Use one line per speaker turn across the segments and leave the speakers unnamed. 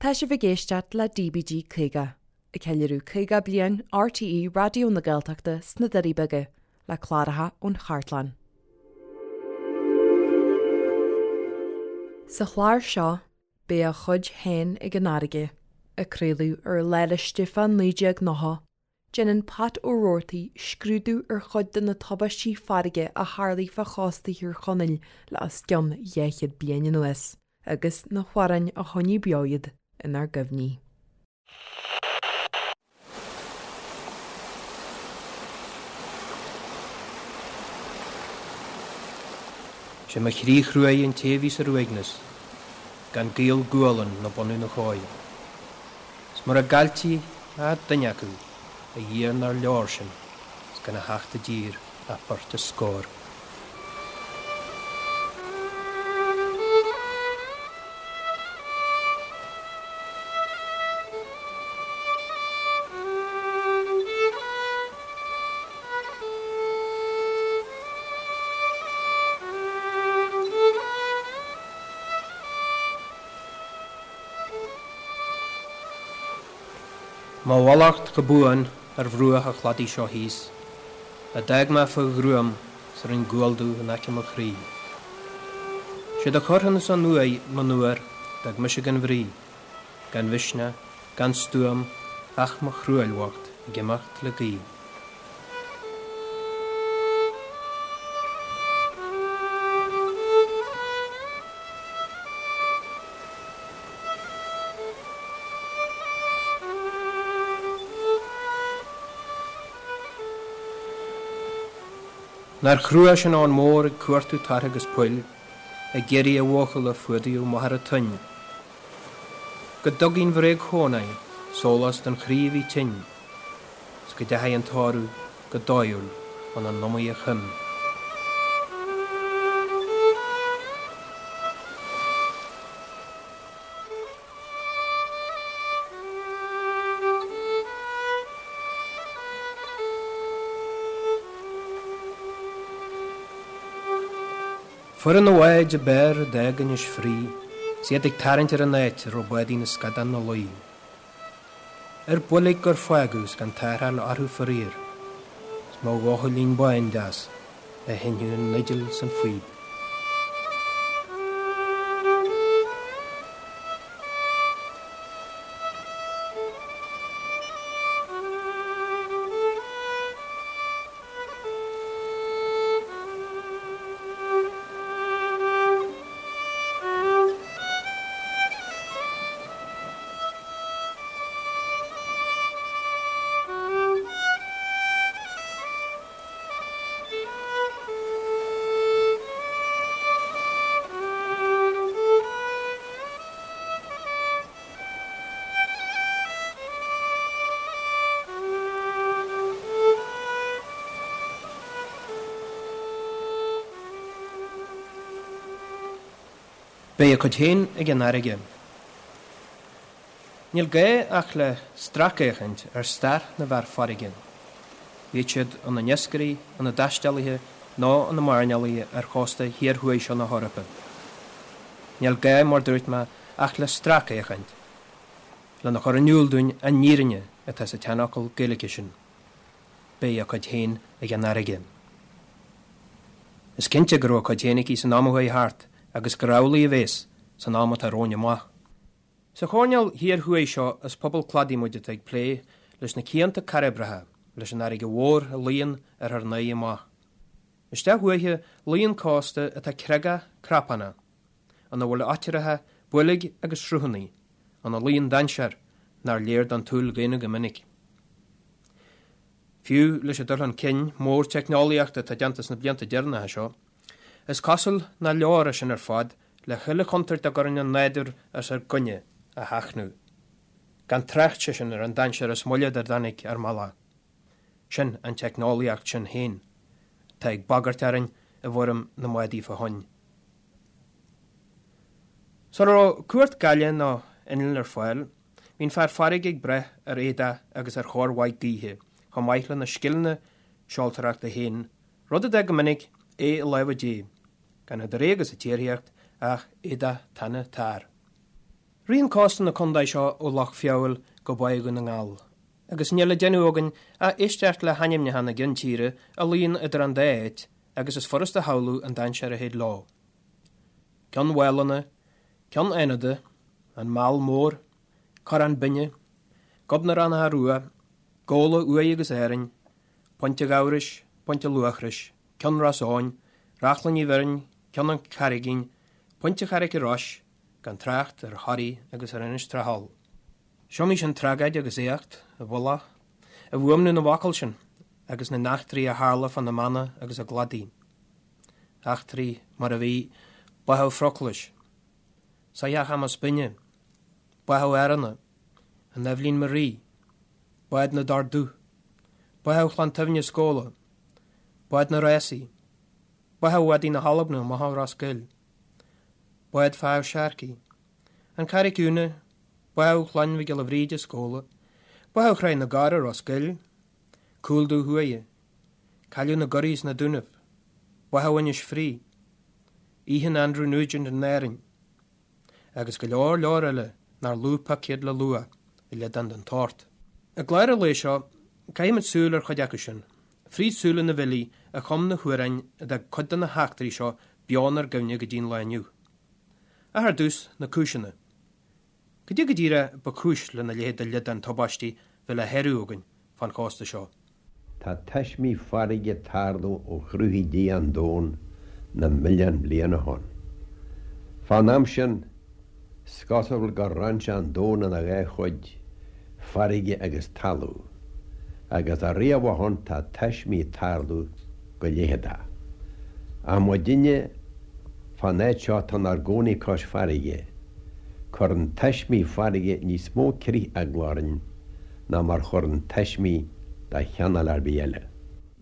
Tá sibh ag éisteacht le DBG 50, ag ceiliúradh 50 bliain RTÉ Raidió na Gaeltachta sna Doirí Beaga, le cláracha ón chartlann. Sa chlár seo, beidh a chuid féin ag an fharraige, a craoladh ar Lá 'le Stiofáin 1990, Déanann Pat Ó Roarty scrúdú ar chuid de na tubaistí farraige a tharlaigh fá chósta Thír Chonaill le os cionn 200 bliain anuas, agus na hamhráin a choinnigh beo iad inár gcuimhní.
Sé mo chroí chruaidh an té a bhí ar uaigneas, gan gaol gualann ná bunadh na cóir. 'S mura gcailltí ach duine acu, a Dhia nár leor sin, 's gan a theacht i dtír ach beirt is scór. Mo mhallacht go buan ar bhruach an chladaigh seo thíos, a d'fhág mé fá ghruaim 's a rinn gual dubh in aice mo chroí. Siad a chuir ansan uaidh monuar d'fhág mise gan bhrí, gan mhisneach, gan stuaim ach mo thruaill bhocht ag imeacht le gaoith. Nár chrua sin abhainn mhór ag cuartú tartha agus poill, ag iarraidh a bhuachalla a fuadaíodh machaire toinn. Go dtugaidh an bhréag-chónaí sólás don chroí a bhí tinn. 's go dteachaidh an tórramh go dóighiúil ina n-iomaidhe choim. Foireann na bháid ab fhearr a d'fhág Inis Fraoigh 's iad ag tarraingt ar an áit a raibh bádaí na scadán 'na luí. Ar boilg gur fágadh 's gan tarrtháil orthu faraor, 's mo bhuachaillín bán deas a sheinneadh an fhidil 's an phíb. Beidh a cuid féin ag an fharraige. Níl gá ach le stracfhéachaint ar stair na bhfear farraige, bíodh siad ina n-iascairí, ina dtaistealaithe nó ina mairnéalaigh ar chósta thiar thuaidh seo na hEorpa. Níl gá, mar dúirt mé, ach le stracfhéachaint, lena chur in iúl dúinn an fhírinne atá sa tseanfhocal Gaeilge sin. Beidh a cuid féin ag an fharraige. Is cinnte go raibh a cuid féin aici san am a chuaigh thart agus gur amhlaidh a bhéas san am atá romhainn amach. Sa choirnéal thiar thuaidh seo is pobal cladaigh muid atá ag plé leis na cianta cairbreacha, leis an fharraige mhór a luíonn ar ár n-aghaidh amach. Isteach uaithi luíonn cósta atá creagach crapánach, ina bhfuil oitreacha, boilg agus sruthanna, ina luíonn dainséar nár léir don tsúil dhaonna go minic. Fiú leis an dul chun cinn mór teicneolaíochta atá déanta sna blianta deireanacha seo, is cosúil nach leor é sin ar fad le chuile chontúirt a gcuireann an nádúr os ár gcoinne a sheachnadh. Gan trácht, sé sin, ar an dainséar is moille dár dtáinig ár mbealach. Sin an teicneolaíocht sin féin atá ag bagairt orainn i bhfoirm na mbádaí fá thoinn. Sula raibh cumhacht gaile nó innill ar fáil, bhí an fear farraige ag brath ar éadach agus ar chóir mhaith gaoithe, chomh maith lena scileanna seoltóireachta féin, rud a d'fhág go minic é i lámha Dé, gan idir é agus an tsíoraíocht ach éadach tana tarr. Ritheann cósta na condae seo ó Loch Feabhail go Báigh Dhún na nGall, agus níl le déanamh againn ach éisteacht le hainmneacha na gceann tíre a luíonn idir an dá áit agus is furast a shamhlú an dainséar a théid leo. Ceann Mhálanna, Ceann Fhánada, An Meall Mór, Corrán Binne, Gob na Raithneacha Rua, Gabhla Uaighe agus Árainn, Pointe Ghabhrais, Pointe Luachrais, Ceann Ros Eoghain, Reachlainn Uí Bhirn, Ceann an Charraigín, Pointe Charraic Rois, gan trácht ar Thoraí agus ar Inis Trá Tholl. 'S iomaí sin tragóid agus éacht i bhfolach i bhfuaimniú na bhfocal sin agus na n-eachtraí a tharla fá na mánna agus a gcladaí. Eachtraí mar a bhí, Báthadh Phroclais, Soitheach Chamas Binne, Báthadh Áranna, an Eibhlín Marie, Bád na dTor Dubh, Báthadh Chlann tSuibhne Scóla, Bád na Rásaí, Báthadh Mhadaí na hAlban amach ó Ros Goill, Bád Pháid Sharkey, An Charraig Úna, Báthadh Chlann Mhic Giolla Bhríde Scóla, Báthadh Chraobh na gCorr Ros Goill, Cúl Dubh Thuaidh, Cailleadh na gCurraí sna Dúnaibh, Báthadh Inis Fraoigh, Oíche Andrew Nugent in Árainn, agus go leor leor eile nár lú pioc iad le lua i liodán den tsórt. I gclár an lae seo, caithfimid súil ar chuid acu sin, fríd súile na bhfilí a chum na hamhráin a d'fhág cuid de na heachtraí seo beo inár gcuimhne go dtí an lá inniu. Ach ar dtús, na cúiseanna. Cad é go díreach ba chúis lena leithéid de liodán tubaistí bheith le háireamh againn fán chósta seo?
Tá taismí farraige ag tarlú ó chruthaigh Dia an domhan na milliún bliain ó shoin. Fán am sin, 's cosúil gur roinn sé an domhan ina dhá chuid, farraige agus talamh, agus ariamh ó shoin tá taismí ag tarlú go leitheadach. Ach muidinne fán áit seo atá inár gcónaí cois farraige, cuireann taismí farraige níos mó crith eagla orainn ná mar chuireann taismí de chineál ar bith eile.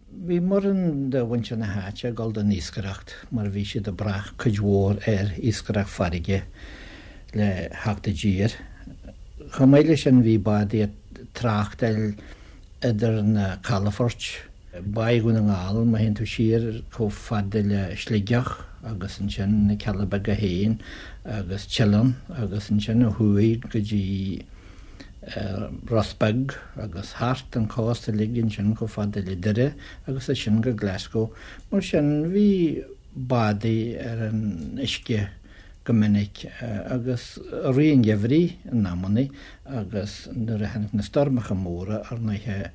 Bhí mórán de mhuintir na háite ag dul don iascaireacht mar bhí siad ag brath cuid mhór ar iascaireacht farraige le theacht i dtír. Chomh maith leis sin bhí bádaí ag tráchtáil idir na calafoirt, Báigh Dhún na nGall, má théann tú siar chomh fada le Sligeach agus ansin na Cealla Beaga féin agus Teileann agus ansin ó thuaidh go dtí Ros Beag agus thart an cósta uilig ansin chomh fada le Doire agus as sin go Glasgow. Mar sin bhí bádaí ar an uisce go minic agus i rith an gheimhridh in amannaí agus nuair a tháinig na stoirmeacha móra ar ndóighe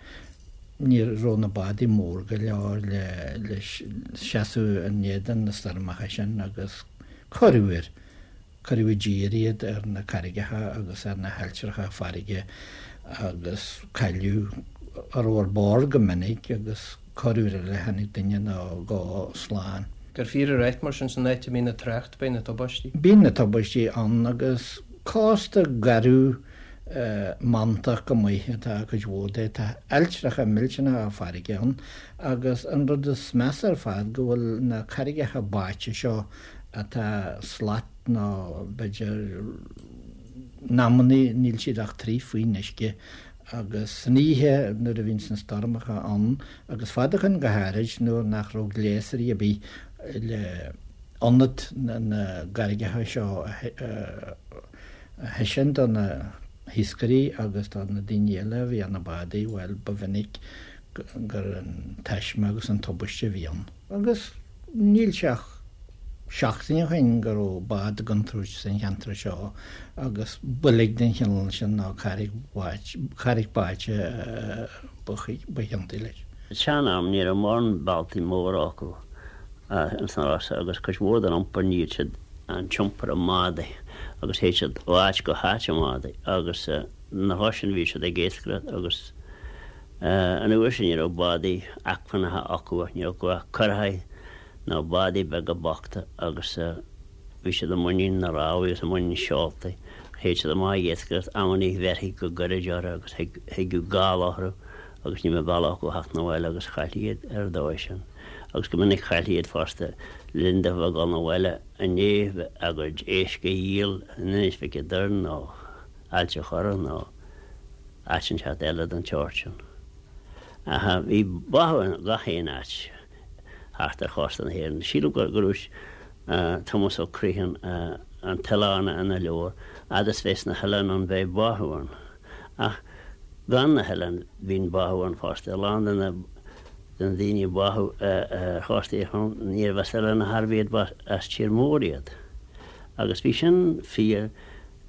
ní raibh na bádaí mór go leor le seasamh in éadan na stoirmeacha sin agus corruair Cuireadh i dtír iad ar na carraigeacha agus ar na hailltreacha farraige agus cailleadh a raibh ar bord go minic agus corruair eile tháinig duine nó dhó slán.
Gur fíor a ráit mar sin san áit a mbíonn an trácht beidh na tubaistí.
Bíonn na tubaistí ann agus cósta garbh mantach go maith atá cuid mhór de. Tá ailltreacha millteanacha farraige ann agus an rud is measa ar fad go bhfuil na carraigeacha báite seo atá slat nó b'fhéidir in amannaí níl siad ach troigh faoin uisce agus san oíche nuair a bhíonns na stoirmeacha ann agus fad ó shoin go háirid nuair nach raibh gléasraí ar bith le ionad na gcarraigeacha seo a thaispeáint do na hiascairí agus do na daoine eile a bhí ar na bádaí, bhuel ba mhinic gur an taisme agus an tubaiste a bhí ann. Agus níl sé ach seachtain ó shin go raibh bád i gcontúirt san cheantar seo agus boilg den chineál sin nó carraig báite ba chiontaí leis.
San am ní raibh mórán bealtaí móra acu ins na Rosa agus cuid mhór den iompar níodh siad an t-iompar i mbádaí agus théid siad ó áit go háit i mbádaí agus na lá sin bhí siad ag iascaireacht agus An uair sin ní raibh bádaí acmhainneacha acu ach ní raibh acu ach curacháí nó bádaí beaga bochta agus bhí siad i muinín na rámhaí agus i muinín seoltaí. Théid siad amach ag iascaireacht amannaí bheirthí go gairid orthu agus thigeadh gála orthu agus ní bheadh bealach acu theacht 'na bhaile agus chailltí iad ar an dóigh sin. Agus go minic chailltí iad fosta le linn dóibh a dhul 'na bhaile i ndiaidh a gcuid éisc a dhíol in Inis Mhic an Doirn nó Ailt a' Chorra nó áit inteacht eile den tseort sin. Ach bhí báthadh in gach aon áit thart ar chósta na hÉireann. Sílim go raibh Tomás Ó Criomhthain. an t-oileán ina leabhar, fhad is bheas na hoileáin ann beidh báthadh ann. Ach gan na hoileáin bíonn báthadh ann fosta. A lán de na de na daoine a báthadh ar chósta Thír Chonaill níorbh as oileáin ar chor ar bith iad ba as tír mór iad. Agus bhí sin fíor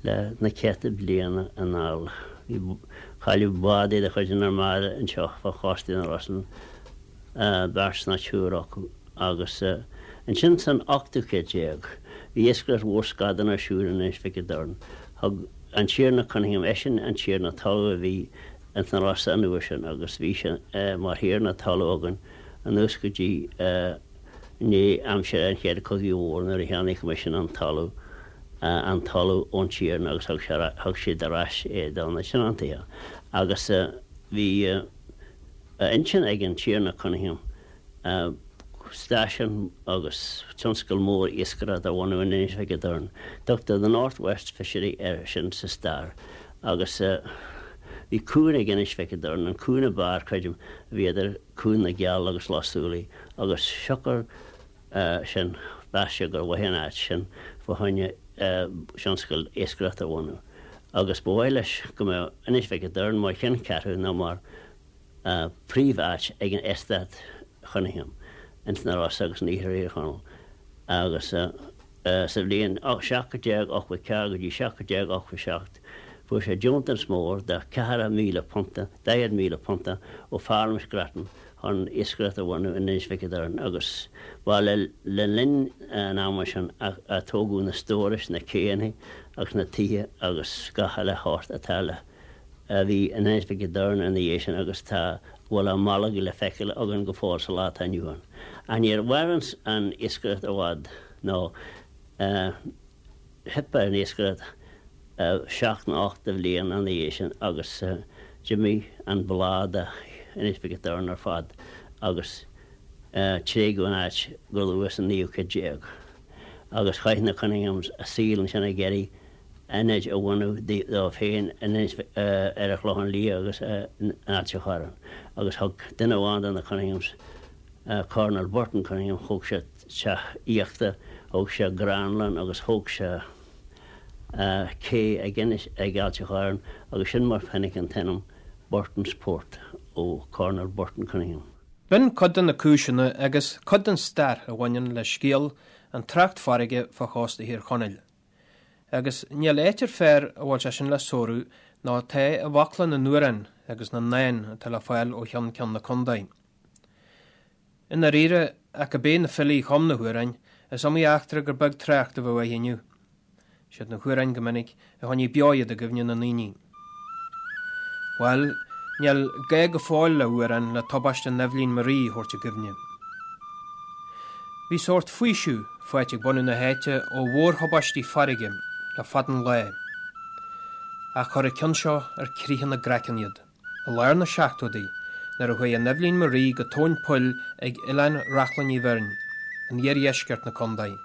le na céadta bliana anall. Bhí cailleadh bádaí de chuid an Armada anseo fá chósta na Rosann, beirt nó triúr acu, agus ansin san ochtú céad déag bhí iascaireacht mhór scadán ar siúl in Inis Mhic a' Doirn. Thug an Tiarna Cunningham, eisean an tiarna talaimh a bhí ins na Rosa an uair sin agus bhí sé mar thiarna talaimh againn anuas go dtí i ndiaidh aimsir an Chéad Chogaidh Mhóir nuair a cheannaigh Coimisiún an talamh an talamh ón tiarna agus thug sé thug siad ar ais é do na tionóntaithe agus bhí a intinn ag an Tiarna Cunningham stáisiún agus tionscal mór iascaireachta a bhunú in Inis Mhic a' Doirn. Tugtar The North West Fishery air sin sa stair agus bhí cuan ag Inis Mhic a' Doirn, an cuan ab fhearr, creidim, a bhí idir Cuan na gCeall agus Loch Súilí agus siocair sin mheas sé gur mhaith an áit sin fá choinne tionscal iascaireachta a bhunú agus ba mhaith leis go mbeadh Inis Mhic a' Doirn mar cheanncheathrú nó mar príomh-áit ag an Eastát Chunningham ins na Rosa agus in Iarthar Thír Chonaill agus sa bhliain 1784 go dtí 1787 fuair sé deontas mór de cheathracha míle punta, £40,000, ó Pharlaimint Grattan chun iascaireacht a bhunú in Inis Mhic a' Doirn agus ba le linn an ama sin a tógadh na stórais, na céanna agus na tithe agus gach uile shórt atá le a bhí in Inis Mhic a' Doirn ina dhiaidh sin agus tá a bhfuil á mbolg le feiceáil againn go fóill sa lá atá inniu ann. Ach níor mhair an iascaireacht i bhfad nó theip ar an iascaireacht seacht nó ocht de bhliain ina dhiaidh sin agus d'imigh an bláth de Inis Mhic a' Doirn ar fad agus tréigeadh an áit go luath sa naoú céad déag agus chaith na Cunninghams a saol ansin ag iarraidh ionaid a bhunú dóibh féin ar an Chlochán Liath agus in Ailt an Chorráin agus thug duine amháin de na Cunninghams, Colonel Burton Cunningham, thóg sé teach aíochta, thóg sé gránlann agus thóg sé cé ag Inis, ag Ailt an Chorráin agus sin mar tháinig an t-ainm Burton's Port ó Colonel Burton Cunningham.
B'in cuid de na cúiseanna agus cuid den stair a bhaineann le scéal an trácht farraige fá chósta Thír Chonaill. Agus níl áit ar fearr a bhfuil sé sin le sárú ná atá i bhfocla na n-amhrán agus na ndán atá le fáil ó cheann ceann na contae. I ndáiríre, ach go b'é na filí a chum na hamhráin, is iomaí eachtra gur beag trácht a bheadh uirthi inniu. Siad na hamhráin go minic a choinnigh beo iad i gcuimhne na ndaoine. Bhuel, níl gá go fóill le hamhrán le tubaiste an Eibhlín Marie a thabhairt i gcuimhne. Bhí sórt faoiseamh faighte ag bunadh na háite ó mhórthubaistí farraige le fada an lá. Ach chuir an ceann seo ar critheadh na gcraiceann iad. I lár na seachtóidí, nuair a chuaigh an Eibhlín Marie go tóin poill ag Oileán Reachlainn Uí Bheirn, in iardheisceart na contae,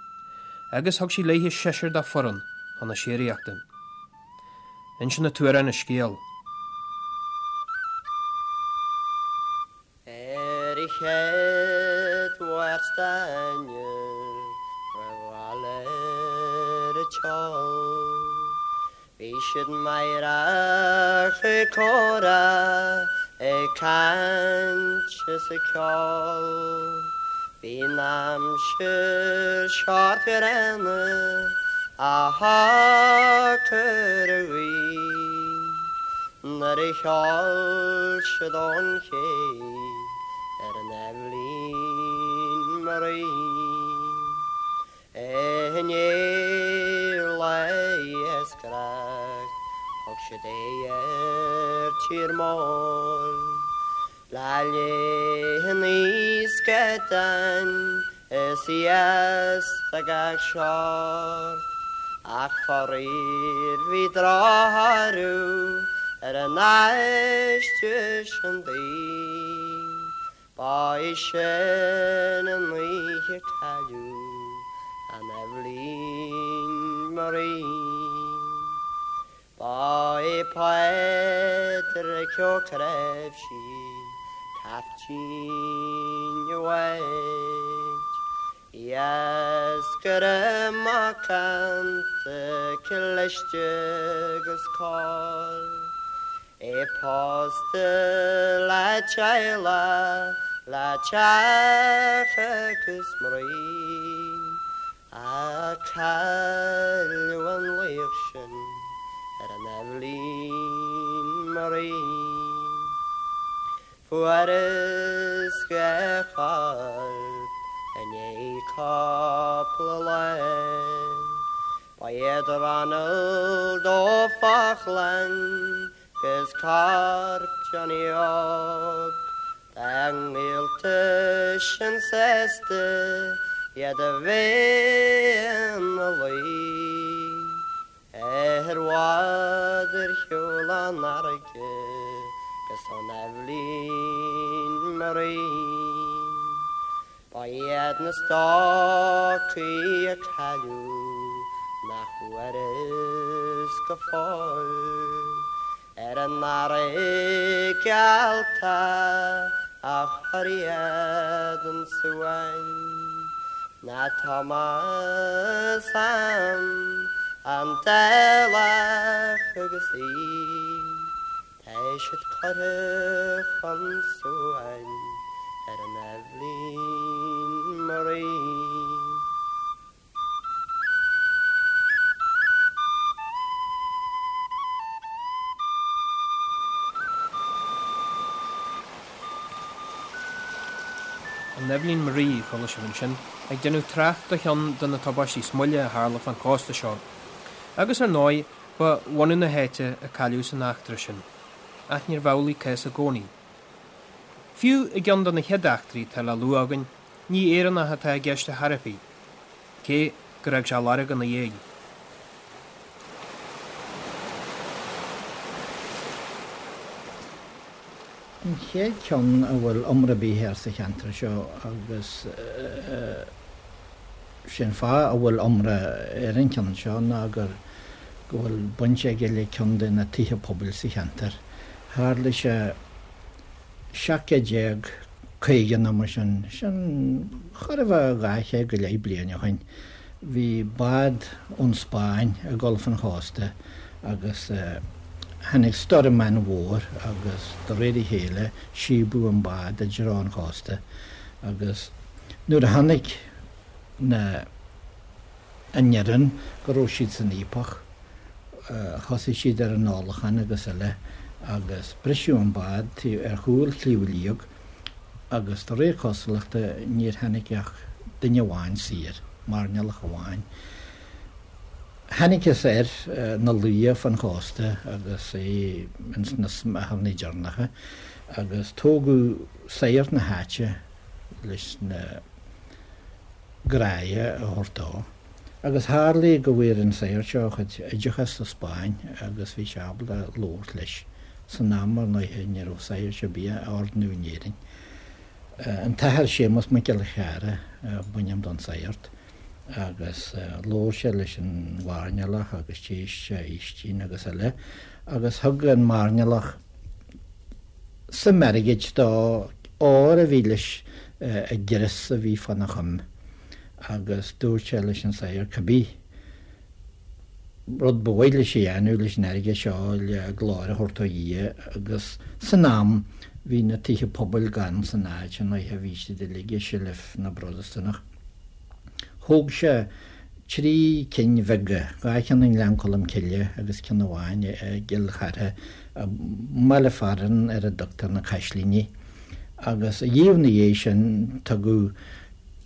agus thug sí léithe seisear dá foireann chun na síoraíochta. Insíonn an t-amhrán an scéal.
Ar an chéad Mháirt d'Eanáir roimh dhul ar an tseol Bhí siad meidhreach ag comhrá, ag caint is ag ceol. Bhí an aimsir sách gránna ach shocair an ghaoth nuair a sheol siad ón ché ar an Eibhlín Marie. I ndiaidh lae iascaireacht thug siad aghaidh ar tír mór. Le linn an scadáin is iasc de gach seort, ach faraor bhí drochthoradh ar an aistear sin daoibh. Ba í sin an oíche cailleadh an Eibhlín Marie. Ba é Pádraic Ó Cnáimhsí caiftín an bháid. Iascaire macánta cliste agus cóir. É pósta le teaghlach, le teach agus mnaoi. Ach cailleadh an laoch sin ar an Eibhlín Marie. Fuarthas a chorp i ndiaidh cúpla lá. Ba iad Ronald Ó Faochláin 'gus corp Johnny Óg dá ngaolta sin sásta iad a bheith ina luí ar bhád ar shiúl ón fharraige 'gus ón Eibhlín Marie. Ba iad na stócaigh a cailleadh nach bhfuarthas go fóill ar an fharraige allta a chuir iad 'un suain ná Tomás Sam an Dálach agus í. Tá siad curtha chun suain ar an Eibhlín Marie.
An Eibhlín Marie, a chuala sibh ansin, ag déanamh trácht do cheann de na tubaistí is moille a tharla fán chósta seo. Agus ar ndóigh, ba bhunadh na háite a cailleadh san eachtra sin. Ach níorbh amhlaidh cás i gcónaí. Fiú i gceann de na chéad eachtraí atá le lua againn, ní Éireannach atá i gceist ar chor ar bith, cé gur fhág sé lorg ina dhiaidh.
An chéad cheann a bhfuil iomrá ar bith air sa cheantar seo agus sé'n fáth a bhfuil iomrá ar an cheann seo ná gur go bhfuil baint aige le ceann de na tithe pobail sa cheantar. Tharla sé 1750 nó mar sin, sin chóir a bheith 200 go leith bliain ó shin. Bhí bád ón Spáinn ag dul fan chósta agus tháinig stoirm an-mhór agus de réir a chéile síobadh an bád i dtreo an chósta agus nuair a chonaic na an fhoireann go raibh siad san fhaopach. Thosaigh siad ar an ólachán agus eile agus briseadh an bád ar chúl Shliabh Liag agus de réir cosúlachta níor tháinig ach duine amháin saor, mairnéalach amháin. Thángthas air ina luí fan chósta agus é ins na smeacharnaí deireanacha agus tógadh sagart na háite leis na gràidhe a thabhairt dó. Agus tharlaigh go bhfuair an sagart seo a chuid oideachais sa Spáinn agus bhí sé ábalta labhairt leis. San am, ar ndóighe, ní raibh sagairt ar bith á ordnú in Éirinn. An tAthair Séamus Mac Giolla Chearra a b'ainm don sagart agus labhair sé leis an mhairnéalach agus d'éist sé a fhaoistin agus eile agus thug an mairnéalach suim airgid dó, ór a bhí leis i gcrios a bhí fána choim agus dúirt sé leis an sagart cibé rud ba mhaith leis a dhéanamh leis an airgead seo le glóir a thabhairt do Dhia agus san am bhí na tithe pobail gann san áit an oíche bhí siad uilig i seilbh na bProtastúnach. Thóg sé 3 cinn bheaga, 2 cheann i nGleann Cholm Cille agus ceann amháin i gCill Chartha, i mbaile fearainn ar a dtugtar na Caislíní, agus díreach ina dhiaidh sin tugadh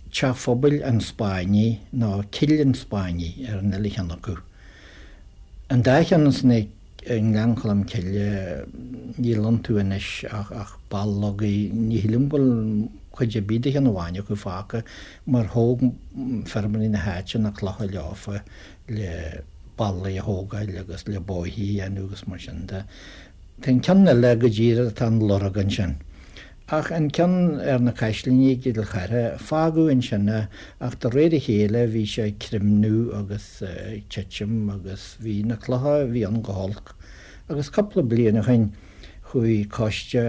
Teach Phobail an Spáinnigh nó Cill an Spáinnigh ar an uile cheann acu. An dá cheann ansan i nGleann Cholm Cille, níl iontu anois ach ballógaí, ní shílim go bhfuil cuid ar bith de cheann amháin acu fágtha mar thóg feirmeoirí na háite na clocha leofa le ballaí a thógáil agus le bóithre a dhéanamh agus mar sin de. Tá an ceann eile go díreach tá an lorg ansin. Ach an ceann ar na Caislíní i gCill Chartha, fágadh ansin é ach de réir a chéile bhí sé ag creimniú agus ag titim agus bhí na clocha a bhí ann go holc. Agus cúpla bliain ó shin chuaigh coiste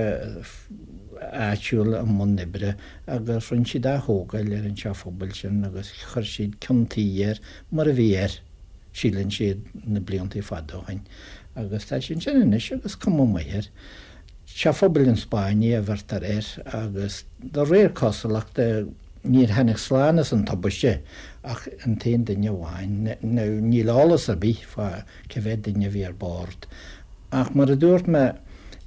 áitiúil i mbun oibre agus rinne siad ath-thógáil ar an teach phobail sin agus chuir siad ceann tuí air mar a bhí air, síleann siad, na bliantaí fada ó shin. Agus tá sé ansin anois agus cuma maith air. Teach Phobail an Spáinnigh a bheirtear air agus de réir cosúlachta níor tháinig slán as an tubaiste ach an t-aon duine amháin. Now níl eolas ar bith fá cé mhéad duine a bhí ar bord ach mar a dúirt mé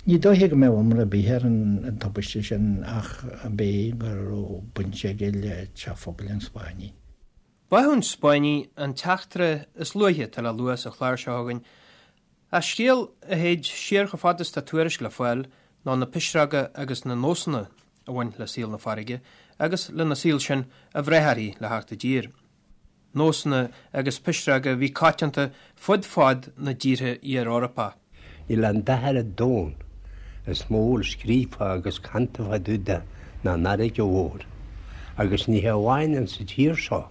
ní dóiche go mbeadh iomrá ar bith ar an tubaiste sin ach ab é go raibh baint aige le Teach Phobail an Spáinnigh.
Báthadh an Spáinnigh an t-eachtra is luaithe atá le lua sa chlár seo againn Ach scéal a théid siar chomh fada is tá tuairisc le fáil ná na pisreoga agus na nósanna a bhain le saol na farraige agus lena saol sin a bhreith uirthi le theacht i dtír. Nósanna agus pisreoga a bhí coitianta fud fad na dtíortha iar-Eorpach.
Níl aon dath ar an domhan is mó a bhfuil scríofa agus canta fá dtaobh de ná an fharraige mhór. Agus ní hé amháin insa tír seo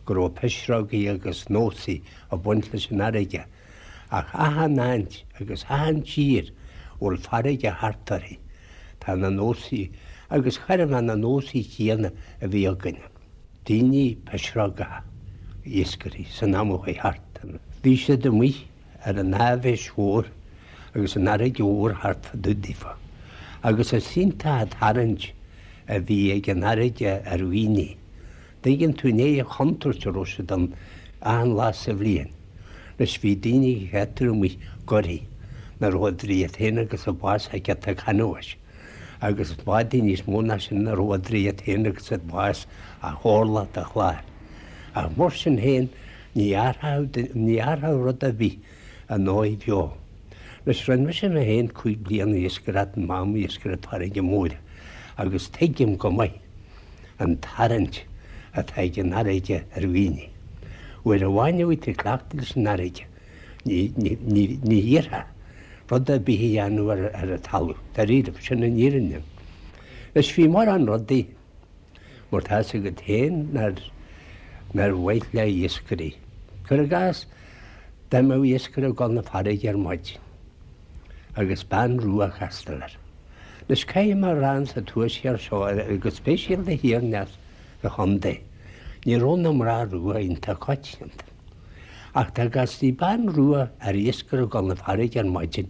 go raibh pisreogaí agus nósaí ag baint leis an fharraige, Ach achan áit agus achan tír a bhfuil farraige thart uirthi, tá na nósaí, agus chóir a bheith na nósaí céanna a bhí againne. Daoine pisreogacha, iascairí, san am a chuaigh thart. Bhí siad amuigh ar an áibhéis mhór agus an fharraige mhór thart fá dtaobh daofa. Agus is iontach an tarraingt a bhí ag an fharraige ar dhaoine. Tuigeann tú i ndiaidh an chontúirt a raibh siad ann achan lá sa bhliain. Anois bhí daoine a cheaptar amuigh goirí nach raibh idir iad féin agus an bás ach giota canbháis, agus bádaí níos mó ná sin nach raibh idir iad féin agus an bás ach orlach de chlár. Ach mar sin féin ní athródh rud ar bith a ndóigh bheo. Anois rinne mise mé féin 5 bliana iascaireacht m'am iascaireacht farraige móire agus tuigim go maith an tarraingt atá ag an fharraige ar dhaoine. Uair amháin a bhí tú cleachta leis an fharraige, ní hiarrfá rud ar bith a dhéanamh ar an talamh, dáiríribh, sin an fhírinne. Anois bhí mórán rudaí, mar tá fhios agat féin, nár mhaith le iascairí. Cuir i gcás, dá mbeadh iascaire ag dul 'na farraige ar maidin agus bean rua a chastáil air. Anois caithfidh mé a rá insa tuaisceart seo, go speisialta thiar aneas sa chontae, ní raibh na mná rua iontach coitianta. Ach dá gcastaí bean rua ar iascaire ag dul 'na farraige ar maidin,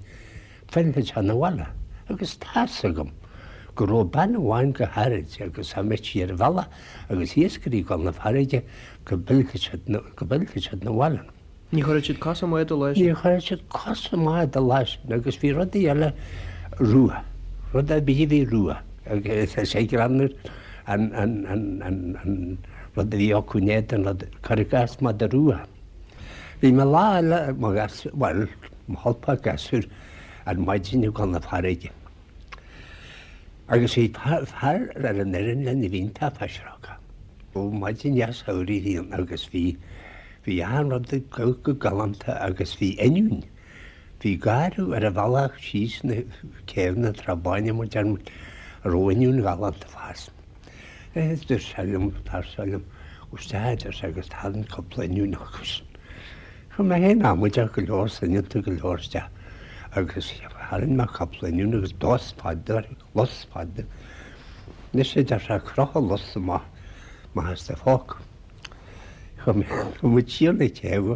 phillfeadh sé 'na bhaile. Agus tá's agam go raibh bean amháin go háirid agus dá mbeadh sí ar an bhealach agus iascairí ag dul 'na farraige go bpillfeadh siad 'na bhaile.
Ní chuirfeadh siad cos i mbád an lá
sin. Ní chuirfeadh siad cos i mbád an lá sin agus bhí rudaí eile rua, rud ar bith a bhí rua agus is é greannmhar an an rud a bhí acu in éadan rud, cuir i gcás mada rua. Bhí mé lá eile mo ghasúr, bhuel, mo cholpach gasúr ar maidin ag dul 'na farraige agus bhí fear ar an fhoireann linn a bhí iontach pisreogach. Maidin dheas shamhraidh a bhí ann agus bhí Bhí achan rud ag dul go galánta agus bhí oinniún. Bhí garradh ar an bhealach síos na céibheanna Trá Báine mar deir muid, a raibh oinniún ghalánta ag fás. Dúirt sé liom, fear seo liom, gabh isteach a deir sé agus tarraing cúpla oinniún acu sin. Chuaigh mé féin amaideach go leor, soineanta go leor isteach agus tharraing mé cúpla oinniún agus lus fada, lus fada. Anois a deir sé, croch an lus amach amach as do phóca. Chuaigh muid siar na céibhe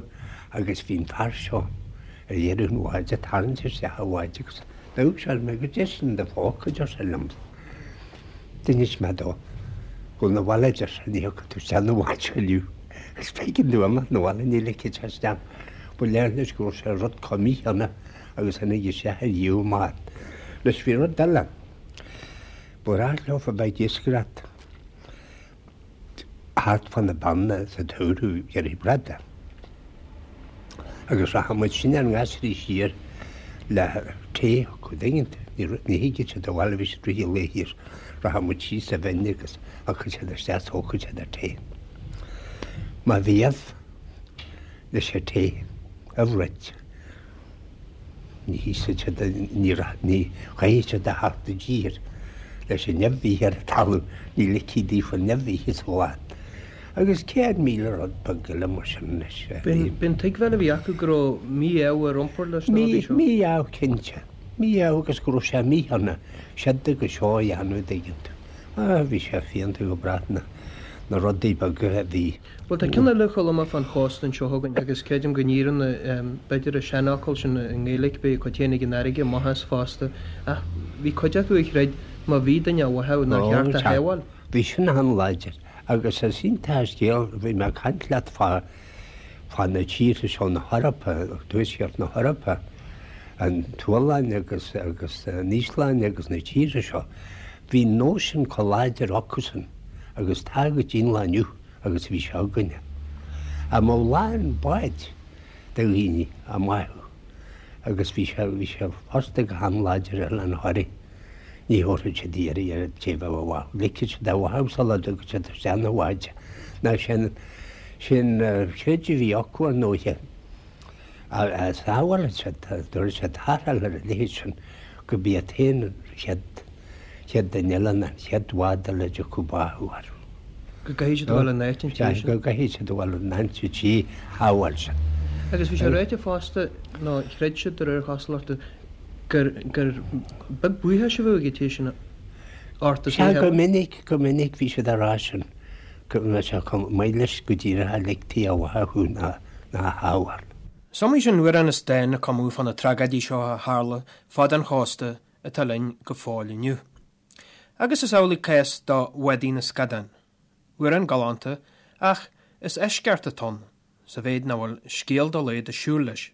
agus bhí an fear seo ar dheireadh an bháid ag tarraingt isteach an bháid agus d'amharc sé orm agus goidé sin i do phóca a deir sé liom. D'inis mé dó. Gabh 'na bhaile a deir sé ní thiocfaidh tú isteach 'na bhád seo inniu. Agus b'éigean dom imeacht 'na bhaile ní ligfeadh sé isteach. Ba léir leis go raibh sé rud chomh mícheanna agus tháinig isteach ar dhíobh an bhád. Anois bhí rud eile. Ba ghnách leofa bheith ag iascaireacht. thart fá na Beanna sa tsamhradh ag iarraidh bradán. Agus rachadh muid sinne ár ngasraí siar le tae acu, an dtuigeann tú. Ní thigeadh siad abhaile, bhí siad rith an lae thiar. Rachadh muid síos sa bhinn agus thiocfadh siad isteach is thógfadh siad an tae. Má bhí ubh leis an tae, ubh roit. Ní híosfaidh siad, ní chaithfidh siad a theacht i dtír leis an nimh a bhí ar an talamh, ní ligfí daofa an nimh a ithe sa bhláth. Agus 100,000 rud beag eile mar sin anois.
B'in tuigbheáil a bhí acu go raibh mí-ádh ar iompar leis na rudaí seo?
Mí-ádh cinnte.
Mí-ádh agus go raibh sé míshona siod agus seo a dhéanamh an dtuigeann tú. Ah, bhí sé fiánta go breá na, na rudaí beaga a bhí.
Bhuel, tá ceann eile a Choilm fán chósta anseo chugainn agus creidim go n-iarrann b'fhéidir an seanfhocal sin i nGaeilge, beidh a cuid féin ag an fharraige, maitheas fosta, ach bhí cuid acu a chreid má bhí duine á bháthadh nár cheart a shábháil.
Bhí sin an-láidir agus is iontach an scéal, bhí mé ag caint leat fá, fá na tíortha seo na hEorpa, tuaisceart na hEorpa, an tSualainn agus, agus an Íoslainn agus na tíortha seo, bhí an nós sin chomh láidir acusan agus tá go dtí an lá inniu agus a bhí sé againne. Dá mbeadh lán báid de dhaoine á mbáthadh agus bhí sé, bhí sé fosta go han-láidir ar Oileán Thoraí. Ní thabharfadh siad iarraidh ar an té a bheadh á bháthadh. Ligfeadh siad á bháthadh sula dtiocfadh siad isteach 'na bháid. Nó sin, sin creideamh a bhí acu ar ndóighe. A sábhálfadh siad, dtabharfadh siad tarrtháil ar a leithéid sin, go b'í an t-aon chéad, chéad duine eile ná an chéad bhád eile a dtiocfadh báthadh orthu.
Go gcaithfidh siad a dhul in áit an tí sin.
Go gcaithfidh siad a dhul in áit an tí shábháil sin.
Agus bhí sé ráite fosta, nó chreid siad de réir cosúlachta, gur gur beag buíochas a bheadh ag an té sin ort as
Sea, go minic, go minic bhí siad á rá sin, go mbeadh sé chomh maith leis go díreach a ligtí á bháthadh thú ná ná a shábháil.
Is iomaí sin amhrán is dán a cumadh fá na tragóidí seo a tharla fad an chósta atá linn go fóill inniu. Agus is amhlaidh cás do Bhádaí na Scadán. Amhrán galánta, ach is eisceacht atá ann, sa mhéid nach bhfuil scéal dá laghad ag siúl leis.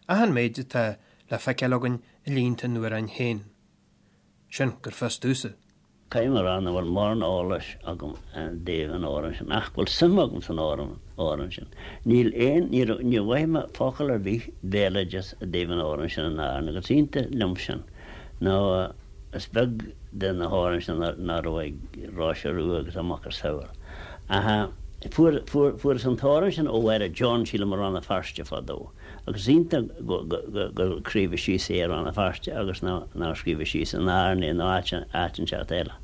Ach an méid atá le feiceáil againn i línte an amhráin féin. Sin gur fios domhsa.
Caithfidh mé a rá nach bhfuil mórán eolais agam i dtaobh an amhráin sin, ach go bhfuil suim agam san amhrán sin. Níl aon, níor, níor mhothaigh mé focal ar bith béaloideas i dtaobh an amhráin sin in Árainn agus is iontach liom sin nó is beag de na hamhráin sin nach raibh ag Róise Rua agus a macasamhail. Ach fuair, fuair, fuaireas an t-amhrán sin ó Mháire John, sílim, i Rann na Feirste fadó. Agus is iontach go, go, go, gur scríobhadh síos é i Rann na Feirste agus ná, nár scríobhadh síos in Árainn é nó áit, áit inteacht eile.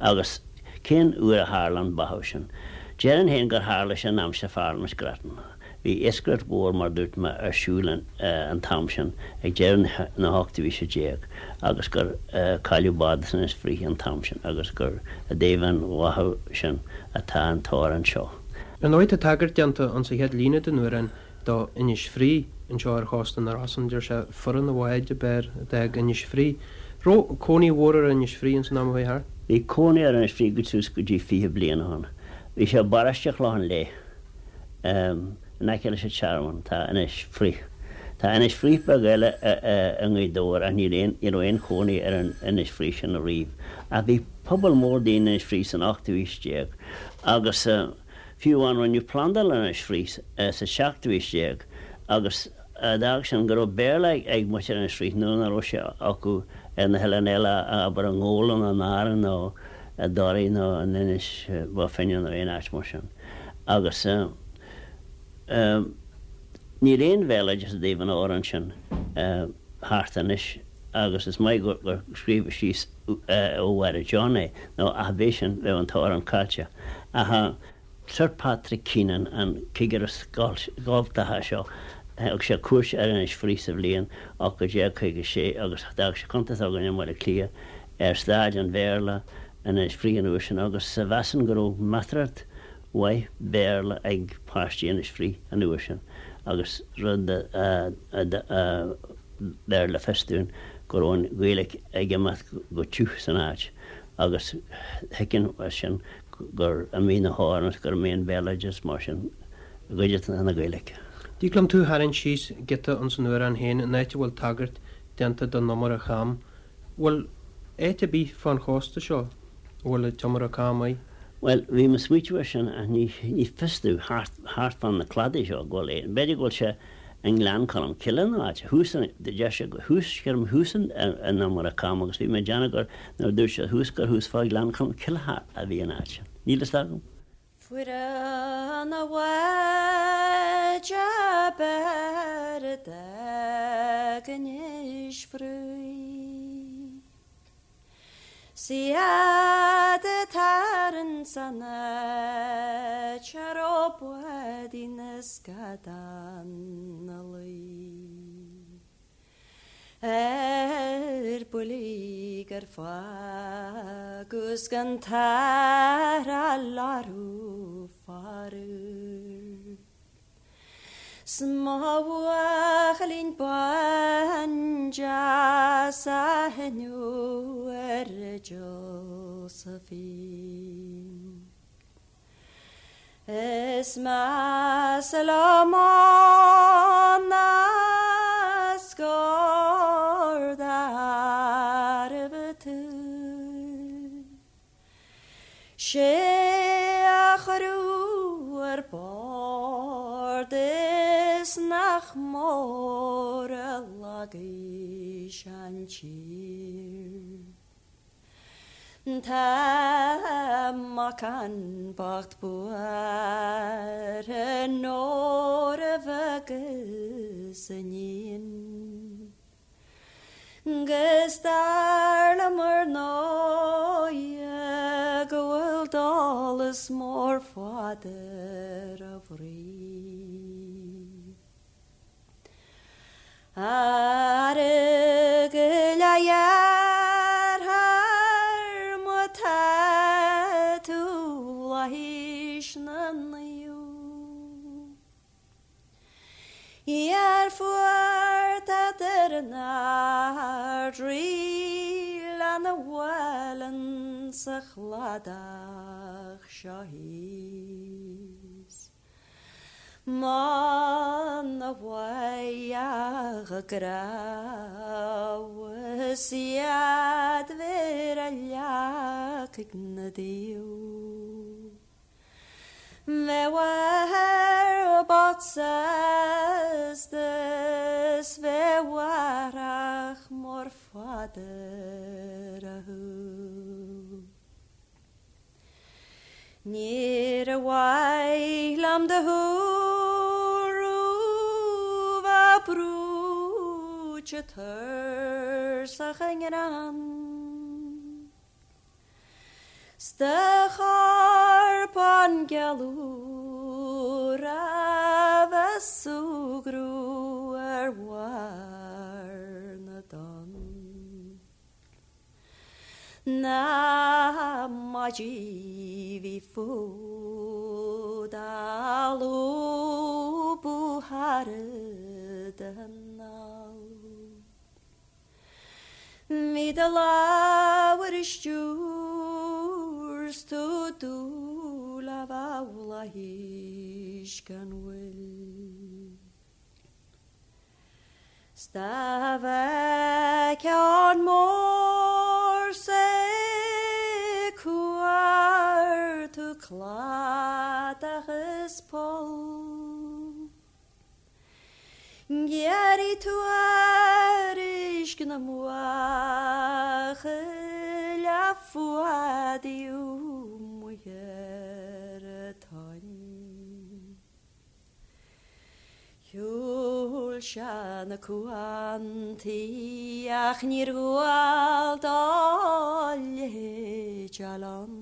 Agus cén uair a tharla an báthadh sin? Déarfainn féin gur tharla sé in aimsir Pharlaimint Grattan. Bhí iascaireacht mhór, mar dúirt mé, ar siúl an t-am sin, ag deireadh na hochtú haoise déag, agus gur cailleadh bád as Inis Fraoich an t-am sin, agus gur i dtaobh an bháthadh sin atá an t-amhrán seo.
Ar ndóigh, tá tagairt déanta insa chéad líne den amhrán do Inis Fraoich anseo ar chósta na Rosann. Deir sé, 'Fuireadh na bháid ab fhearr a d'fhág Inis Fraoich'. Raibh cónaí mhór ar Inis Fraoich ins an am a chuaigh thart?
Bhí cónaí ar Inis Fraoich go suas go dtí 20 bliain ó shin. Bhí sé i bparóiste Chlochán Léith. In aice leis an Tearmann tá Inis Fraoich. Tá Inis Fraoich beag eile i nGaoth Dobhair ach níl aon, ní raibh aon chónaí ar an Inis Fraoich sin ariamh. Ach bhí pobal mór daoine in Inis Fraoich san ochtú haois déag agus fiú amháin rinneadh plandáil in Inis Fraoich sa seachtú haois déag agus d'fhág sin go raibh Béarla ag muintir Inis Fraoich nuair nach raibh sé acu ar na hoileáin eile, abair i nGabhla nó in Árainn nó i dToraigh nó in Inis Bó Finne nó aon áit mar sin. Agus níl aon bhéaloideas i dtaobh an amhráin sin thart anois agus is maith gur scríobhadh síos ó Mháire John é, nó ach bheadh sin, bheadh an t-amhrán caillte. Ach Sir Patrick Keenan, an cigire scoltacha seo, thug sé cuairt ar Inis Fraoich sa bhliain 1856 agus d'fhág sé cuntas againn i mBaile Átha Cliath ar staid an Bhéarla in Inis Fraoich an uair sin agus mheasainn go raibh measartha mhaith Béarla ag páistí Inis Fraoich an uair sin agus rud a bheir le fios dúinn go raibh an Ghaeilge ag imeacht go tiubh san áit agus thuigfinn as sin gur imigh na hamhráin agus gur imigh an béaloideas mar sin i gcuid de na Gaeilge.
Dtig liom tú a tharraingt síos giota ins an amhrán féin, an áit a bhfuil tagairt déanta don iomaire cham. Bhfuil áit ar bith fán chósta seo a bhfuil an t-iomaire cam air?
Bhuel, bhí mé ag smaoitiú air sin ach ní, ní fios domh, thart, thart fán na cladaí seo, go bhfuil aon, b'fhéidir go bhfuil sé i nGleann Cholm Cille nó áit, thuas an, deir sé go, thuas, creidim thuas an, an iomaire cam agus bhí mé ag déanamh gur, nuair a dúirt sé thuas gur thuas fá Ghleann Cholm Cille a bhí an áit sin. Níl fhios agam.
Fuireadh na bháid ab fhearr a d'fhág Inis Fraoich. 'S iad atá insan áit a raibh bádaí na scadán 'na luí. buillí gur fágadh 's gan tarrtháil orthu faraor. 'S mo bhuachaillín bán deas a thaitneodh ar Josephine. Is measa liom ann ná scor d'arbh tú. 'Sé a cuireadh ar bord is nach mór a lagaigh sé an tír. Tá mac an bocht buartha nuair a bheadh a iníon. 'Gus dar liom ar ndóighe go bhfuil dólas mór fada ar a bhroigh. Ara go leighearthair má tá tú fhlaithis na naomh. Iar fuair tada ar an Ard-Rí lena bhuaileann sa chladach seo thíos. Muna bhfaigheadh a gcrabhadh is iad bheith ar leacaigh na dtaobh. Bheadh athair bocht sásta 's bheadh athrach mór fada ar a shúil. Níor mhaith liom do shúil bheith brúite tuirseach i ngreann. 'S do chorpán geal úr a bheith súgradh ar bharr na dtonn. Na maidí bhí fút á lúbadh thar d'anál. Bhí do lámh ar a stiúir 's tú dúil a bheith bhflaithis gan mhoill. 'S dá bhfeicfeá an mór 's ag cuartú cladach is poll. Ghearrfaidh tú tuairisc na mbuachaill a fuadaíodh amuigh ar an tonn. Shiúil sé na cuantaí ach níor dhual dó a leithéid fháil ann.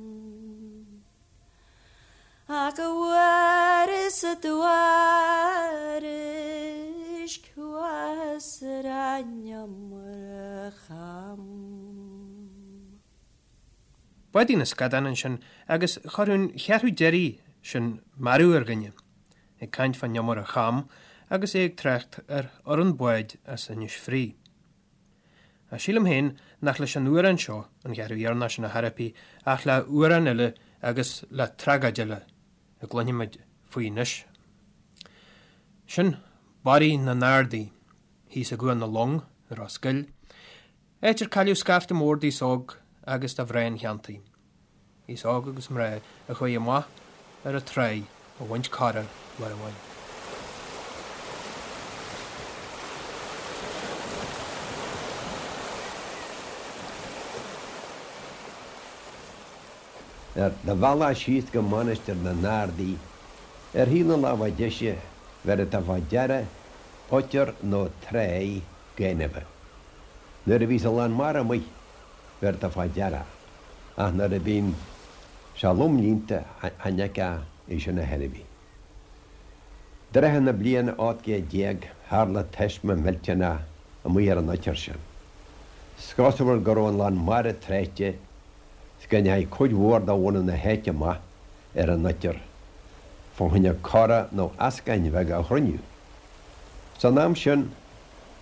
Ach a bhfuaireas a dtuairisc chuas ar an iomaire cham.
Báidí na Scadán ansin agus chuirfeadh an cheathrú deiridh sin mearbhall ar dhuine, ag caint fán iomaire cham agus é ag trácht ar fhoireann báid as Inis Fraoigh. Ach sílim féin nach leis an amhrán seo, an cheathrú dheireanach sin ar chor ar bith, ach le hamhrán eile agus le tragóid eile a gcluinfimid faoi anois. Sin Barraí na nArdaí, thíos i gCuan na Long i Ros Goill, Áit ar cailleadh scaifte mór d'aos óg agus de mhná an cheantair, aos óg agus mná a chuaigh amach ar an tráigh a bhaint cora lá amháin.
Ar do bhealach síos go Mainistir na nArdaí, ar thaobh na láimhe deise, bhéarfaidh tú fá deara oitir nó tráigh gainimhe. Nuair a bhíos an lán mara amuigh, bhéarfaidh tú fá deara, ach nuair a bhíonn sé lom líonta, chan fheicfeá é sin ar chor ar bith. I dtrátha na bliana 18 céad, tharla taisme millteanach amuigh ar an oitir sin. 'S cosúil go raibh an lán mara tráite 's go ndeachaigh cuid mhór de bhunadh na háite amach ar an oitir fá choinne cora nó eascáin bheaga a chruinniú. San am sin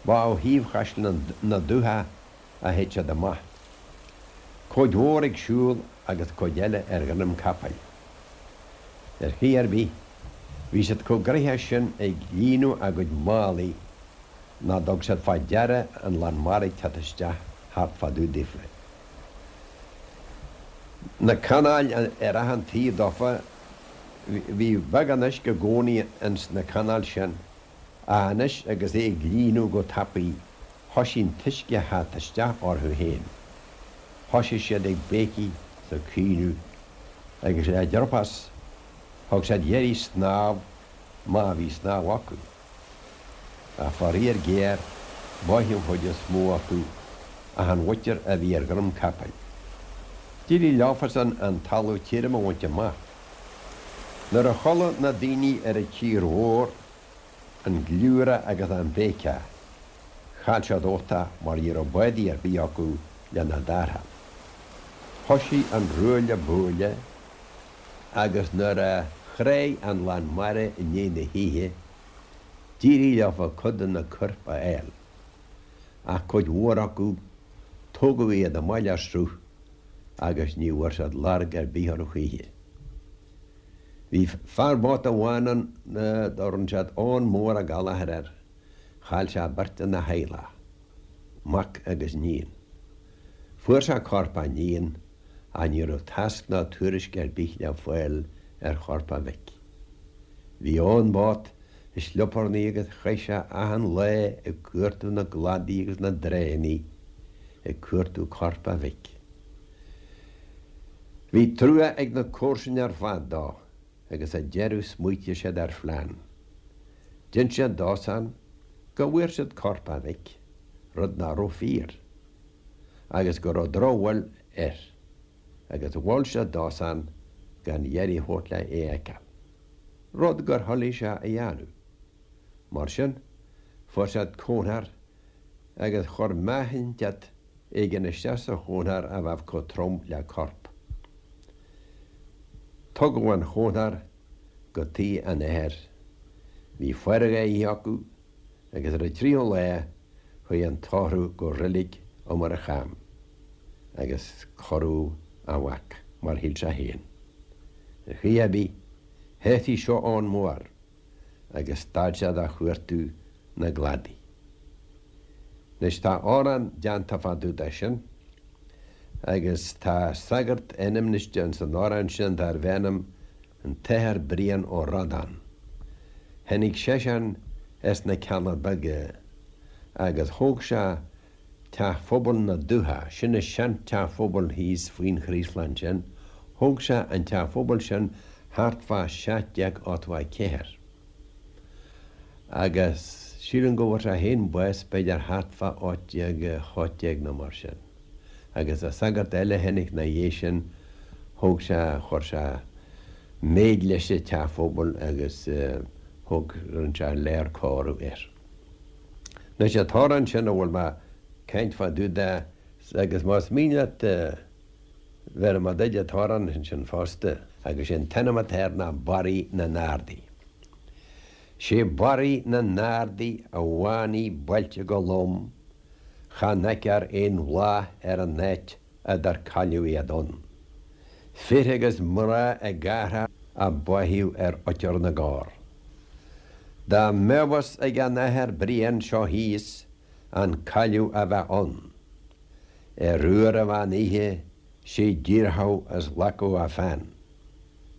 ba ó thaobh Chaisleán na Dúiche a théadh siad amach. Cuid mhór ag siúl agus cuid eile ar dhroim capaill. Ar chaoi ar bith, bhí siad chomh gnoitheach sin ag líonadh a gcuid málaí ná dtug siad fá deara an lán mara ag teacht isteach thart fá dtaobh daofa. Na canáil ar achan taobh dófa, bhí beagán uisce i gcónaí ins na canáil sin, ach anois agus é ag líonadh go tapaidh, thoisigh an t-uisce a theacht isteach orthu féin. Thoisigh siad ag béicigh 's ag caoineadh, agus le driopás thug siad iarraidh snámh má bhí snámh acu. Ach faraor géar, báitheadh an chuid is mó acu ach an mhuintir a bhí ar dhroim capaill. D'éirigh leofasan an talamh tirim a bhaint amach. Nuair a chuala na daoine ar an tír mhór an gliúradh agus an bhéiceach, chaill siad uchtach mar ní raibh bádaí ar bith acu lena dtarrtháil. Thoisigh an ruaille buaille agus nuair a thráigh an lán mara i ndiaidh na hoíche, d'éirigh leofa cuid de na coirp a fháil, ach cuid mhór acu, tógadh iad amach le sruth agus ní bhfuair siad lorg ar bith orthu choíche. Bhí fear báta amháin ann dá raibh siad Eoghan Mór Ó Gallchóir air, chaill sé beirt ina theaghlach, mac agus níon. Fuair sé corp a níon ach ní raibh tásc ná tuairisc ar bith le fáil ar chorp a mhic. Bhí Eoghan bocht i slioparnaí agus chaith sé achan lá ag cuartú na gcladaí agus na dtránnaí ag cuartú corp a mhic. Bhí trua ag na comharsain ar fad dó agus sa deireadh smaoitigh siad ar phlean. D'inis siad dósan go bhfuair siad corp a mhic, rud nach raibh fíor. agus go raibh drochbhail air, agus mhol siad dósan gan iarraidh a thabhairt le é a fheiceáil, rud gur thoiligh sé a dhéanamh. Mar sin, fuair siad cónthar agus chuir meáchainteacht éigin isteach sa chónthar a bheadh chomh trom le corp. Tugadh an chónthar go tigh an athar. Bhí faire dhá oíche acu agus ar an tríú lá chuaigh an tórramh go reilig Iomaire Cham agus cuireadh a mhac mar shíl sé féin. Ar chaoi ar bith, shásaigh seo Eoghan Mór agus stad sé de chuartú na gcladaí. Anois tá amhrán déanta fá dtaobh de sin agus tá sagart ainmniste ins an amhrán sin darbh ainm an tAthair Brian Ó Rodáin. Tháinig seisean as na Cealla Beaga agus thóg sé Teach Phobail na Dúiche, sin an sean-teach phobail thíos faoin Chraoslach ansin, thóg sé an teach phobail sin thart fá 1784. Agus sílim go bhfuair sé féin bás b'fhéidir thart fá 1818 nó mar sin. Agus an sagart eile a tháinig 'na dhiaidh sin, thóg sé, chuir sé méid leis an teach phobail agus thóg, rinne sé lear cóiriú air. Anois an t-amhrán sin a bhfuil mé ag caint fá dtaobh de, agus más mian leat bhéarfaidh mé duit an t-amhrán ansin fosta, agus sé an t-ainm atá air ná Barraí na nArdaí. Sé Barraí na nArdaí a bhánaigh bailte go lom, Chan fheicthear aon bhláth ar an áit a dar cailleadh iad ann. Fir agus mná ag athrá a báitheadh ar oitir na gcorr. Dá mbeadh fhios ag an Athair Brian seo thíos an cailleadh a bheadh ann, ar uair an mheán oíche 'sé dhíorfadh is ghlacfadh a pheann.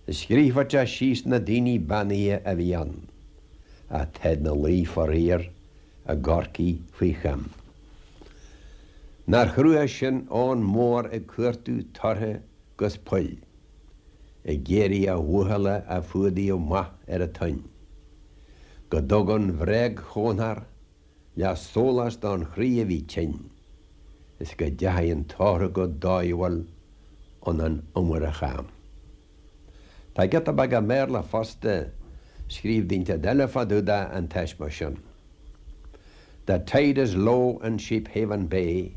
Scríobhfadh sé síos na daoine beannaithe a bhí ann, ach táid 'na luí faraor i gCorcaigh faoi choim. Nár chrua sin Eoghan Mór ag cuartú tortha 'gus poill, ag iarraidh a bhuachalla a fuadaíodh amach ar an toinn. Go dtuga an bhréag-chónthar le sólás don chroí a bhí tinn, is go dteachaidh an tórramh go dóighiúil 'un an Iomaire Cham. Tá giota beag i mBéarla fosta, scríobh duine eile fá dtaobh de an taisme sin. The tide is low in Sheephaven Bay.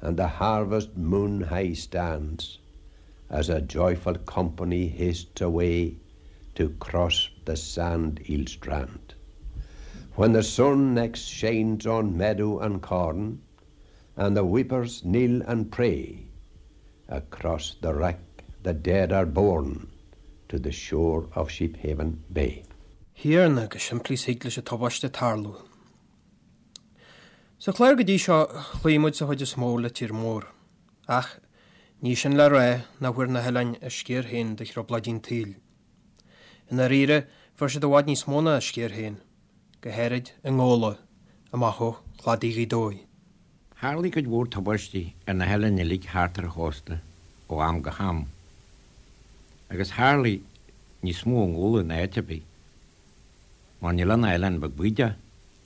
And the harvest moon high stands As a joyful company hastes away To cross the sand eel strand. When the sun next shines on meadow and corn, And the weepers kneel and pray, Across the wreck the dead are borne To the shore of Sheephaven Bay.
Thiarna, chomh simplí is thig leis an tubaiste tarlú. Sa chlár go dtí seo, chloígh muid sa chuid is mó le tír mór. Ach, ní sin le rá nach bhfuair na hoileáin a sciar féin de thrioblóidí an tsaoil. I ndáiríre, fuair siad i bhfad níos mó ná a sciar féin, go háirid i nGabhla, amach ó chladaí Ghaoth Dobhair.
Tharlaigh cuid mhór tubaistí ar na hoileáin uilig thart ar an chósta ó am go ham. Agus tharlaigh níos mó i nGabhla ná áit ar bith. Mar níl ann ach oileán beag bídeach,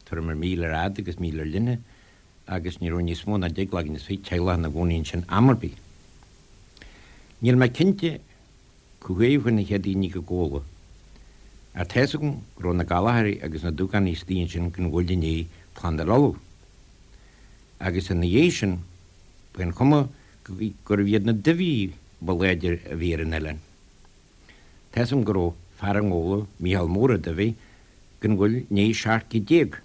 tuairim ar mhíle ar fhad agus míle ar leithne, agus ní raibh níos mó ná deich gcloigeann is fiche teaghlach ina gcónaí ansin am ar bith. Níl mé cinnte cá huair a chuaigh na chéad daoine go Gabhla, ach tá's agam go raibh na Gallchóirí agus na Dúgánaigh istigh ansin gan mhoill i ndiaidh Plandáil Uladh. Agus ina dhiaidh sin, ba é an chuma gurbh iad na Duibhigh ba láidre a bhí ar an oileán. Tá's agam go raibh fear i nGabhla, Mícheál Mór Ó Duibhigh, gan mhoill i ndiaidh 17 céad.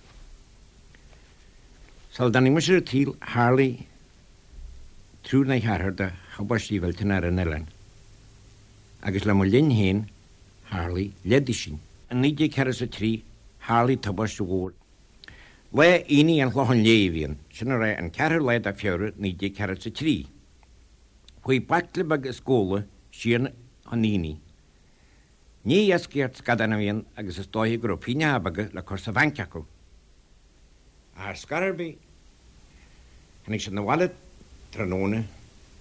Sula dtáinig mise ar an tsaol tharlaigh triúr nó ceathrar de thubaistí mhillteanacha ar an oileán, agus le mo linn féin tharlaigh leathduisín. I 1943 tharlaigh tubaiste mhór. Lá Aoine an Chlocháin Léith a bhí ann, sin a rá an ceathrú lá de Feabhra 1943. Chuaigh baicle beag as Gabhla siar chun aonaigh. Ní iascaireacht scadán a bhí ann agus is dóiche go raibh pingneacha beaga le cur sa bhanc acu. Ach ar scor ar bith, tháinig siad 'na bhaile tráthnóna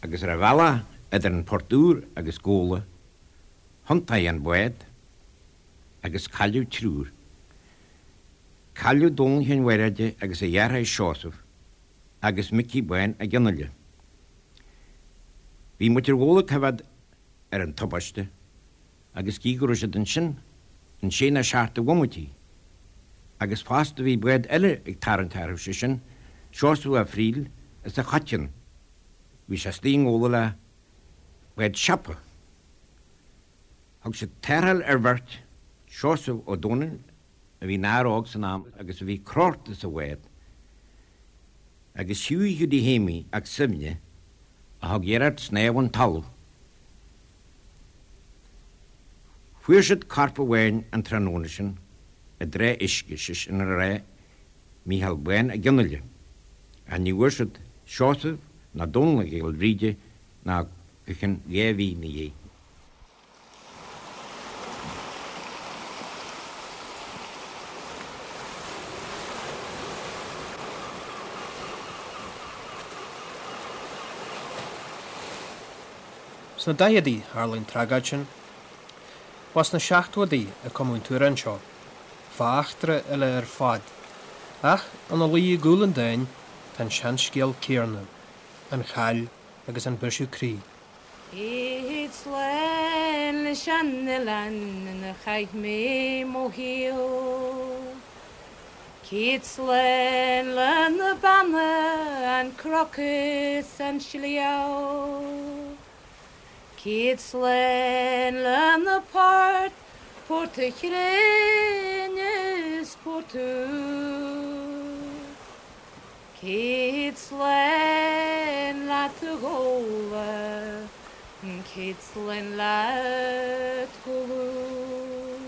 agus ar a bhealach idir an Port Úr agus Gabhla, thiontaigh an bád agus cailleadh triúr. Cailleadh Dónall Sheáin Mhairéide agus a dheartháir Seosamh agus Micí Bán Ó Donnghaile. Bhí muintir Ghabhla ag coimhéad ar an tubaiste agus gíodh go raibh siad ansin in sé nó seacht de bhomaití agus fosta bhí bád eile ag tarraingt orthu, sé sin Seosamh Ó Frighil as an Choiteann. Bhí sé istigh i nGabhla le bád siopa. Thug siad tarrtháil ar bheirt, Seosamh Ó Domhnaill a bhí ina fhear óg san am agus a bhí crochta sa bhád, agus Hughie Hiúdaí Shéimí 'ac Suibhne a thug iarracht snámh chun talaimh. Fuair siad corp amháin an tráthnóna sin i dtrá uisce, sé sin a rá Mícheál Bán Ó Donnghaile, ach ní bhfuair siad Seosamh ná Dónall Mac Giolla Bhríde ná go cionn 2 mhí 'na dhiaidh.
Sna daicheadaí tharla an tragóid sin. Ba sna seachtóidí a cumadh an t-amhrán seo, fá eachtra eile ar fad, ach ina luí i gcúl an dáin tá an seanscéal céanna, an chaill agus an briseadh croí.
Céad slán leis an oileán ina chaith mé mo shaol. Céad slán le na beanna, an cnoc is an sliabh. Céad slán le na poirt, Port a' Chrainn is Port Úr. Céad slán leat a Ghabhla, céad slán leat Glún.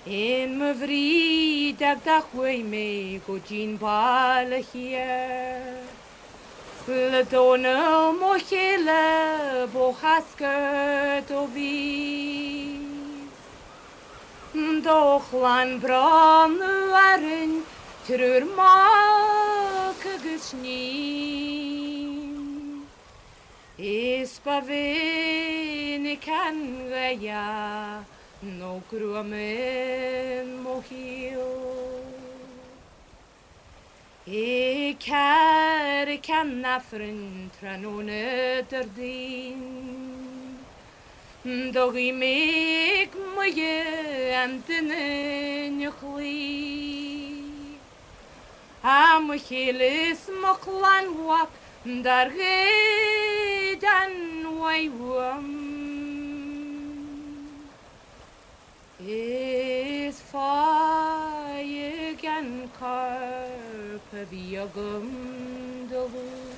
In mo bhrídeach do chuaigh mé go dtí'n baile thiar, Le Dónall mo chéile b'ó Chascair do bhíos. Do chlann bronnadh orainn triúr mac agus níon. Is ba mhinic an ghaoth nó gruaim in mo shaol. I gCarraig an Aifrinn tráthnóna Déardaoin. Do ghuigh mé ag Muire an duine 'na chloí.
Tá mo chéile is mo chlann mhac dár ghoid an mhaith uaim. Is faigh an corp a bhí agam do Luan.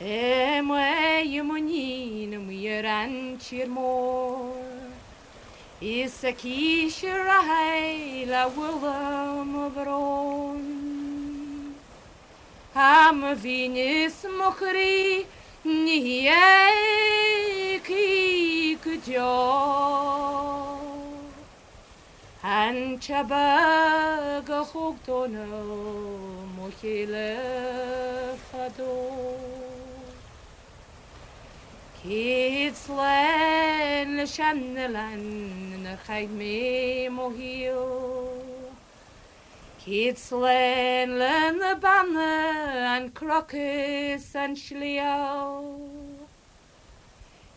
I mBaile Munna amuigh ar an tír mór Is aici ar aghaidh le bhualadh mo bhrón Tá mo mhian is mo chroí ní éagfaidh go deo. An té beag a thóg Dónall mo chéile fadó. Céad slán leis an oileán inar chaith mé mo shaol. Céad slán le na beanna, an cnoc is an sliabh.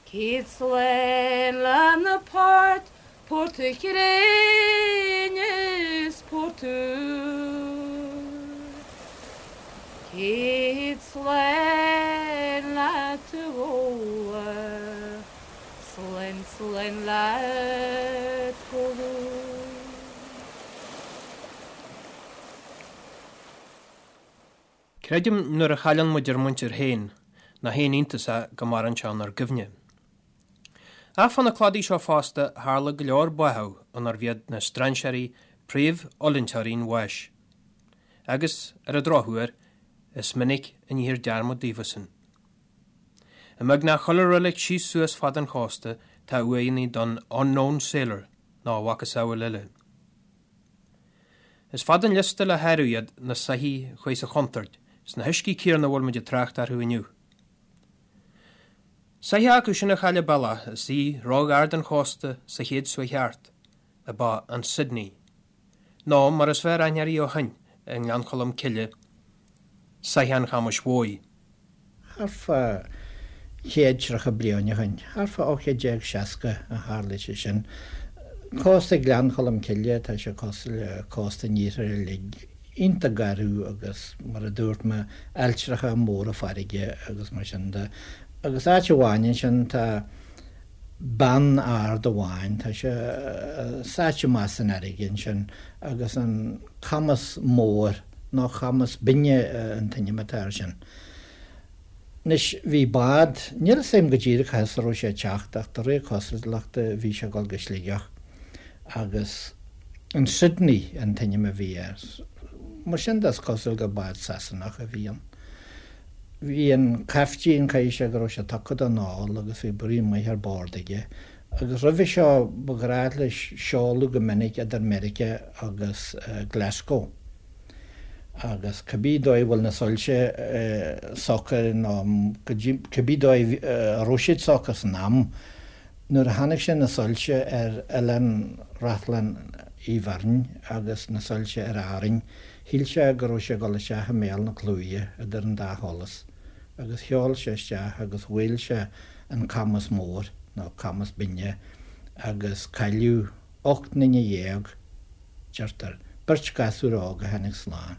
Céad slán le na poirt, Port a' Chrainn is Port Úr. Céad slán leat a Fhódhla, slán slán leat go luath.
Creidim nuair a chailleann muid ár muintir féin nach aon iontas é go maireann sé inár gcuimhne. Ach fá na cladaí seo fosta tharla go leor báitheadh inarbh iad na strainséirí príomhfhulainteoirí an bháis. Agus, ar an drochuair, is minic a níthear dearmad daofasan. I mbeagnach chuile reilig síos suas fad an chósta tá uaigheanna don 'unknown sailor' nó a mhacasamhail eile. Is fada an liosta le háireamh iad na soithí a chuaigh sa chontúirt sna huiscí céanna a bhfuil muid ag trácht orthu inniu. Soitheach acu sin a chaill a bealach is í róghar don chósta sa chéad suaith cheart ab ea an Sydney, nó mar is fearr aithne uirthi ó shin i nGleann Cholm Cille, Soitheach an Chamais Mhóir.
Thart fá 130 bliain ó shin, thart fá 1860 a tharla sé sin. Cósta Ghleann Cholm Cille, tá sé cosúil le cósta an iarthair uilig, iontach garbh agus mar a dúirt mé, ailltreacha móra farraige agus mar sin de. Agus áit amháin ansin tá beann ard amháin, tá sé sáite amach san fharraige ansin agus an Camas Mór, nó Camas Binne an t-ainm atá air sin. Anois, bhí bád, níl 'fhios a'm go díreach cá as a raibh sé ag teacht ach de réir cosúlachta bhí sé ag dul go Sligeach agus an Sydney an t-ainm a bhí air. Mar sin de is cosúil gur bád Sasanach a bhí ann. Bhí an caiftín, caithfidh sé go raibh sé tugtha don ól agus bhí braon maith ar bord aige agus roimhe seo ba ghnách leis seoladh go minic idir Meiriceá agus Glasgow. Agus cibé dóigh a bhfuil na soilse socair nó cibé dóigh a raibh siad socair san am, nuair a chonaic sé na soilse ar Oileán Reachlainn Uí Bheirn agus na soilse ar Árainn, shíl sé go raibh sé ag dul isteach i mbéal na claimhe idir an dá sholas. Agus sheol sé isteach agus bhuail sé an Camas Mór, nó Camas Binne, agus cailleadh 18 nduine. deirtear, beirt ghasúr óg a tháinig slán.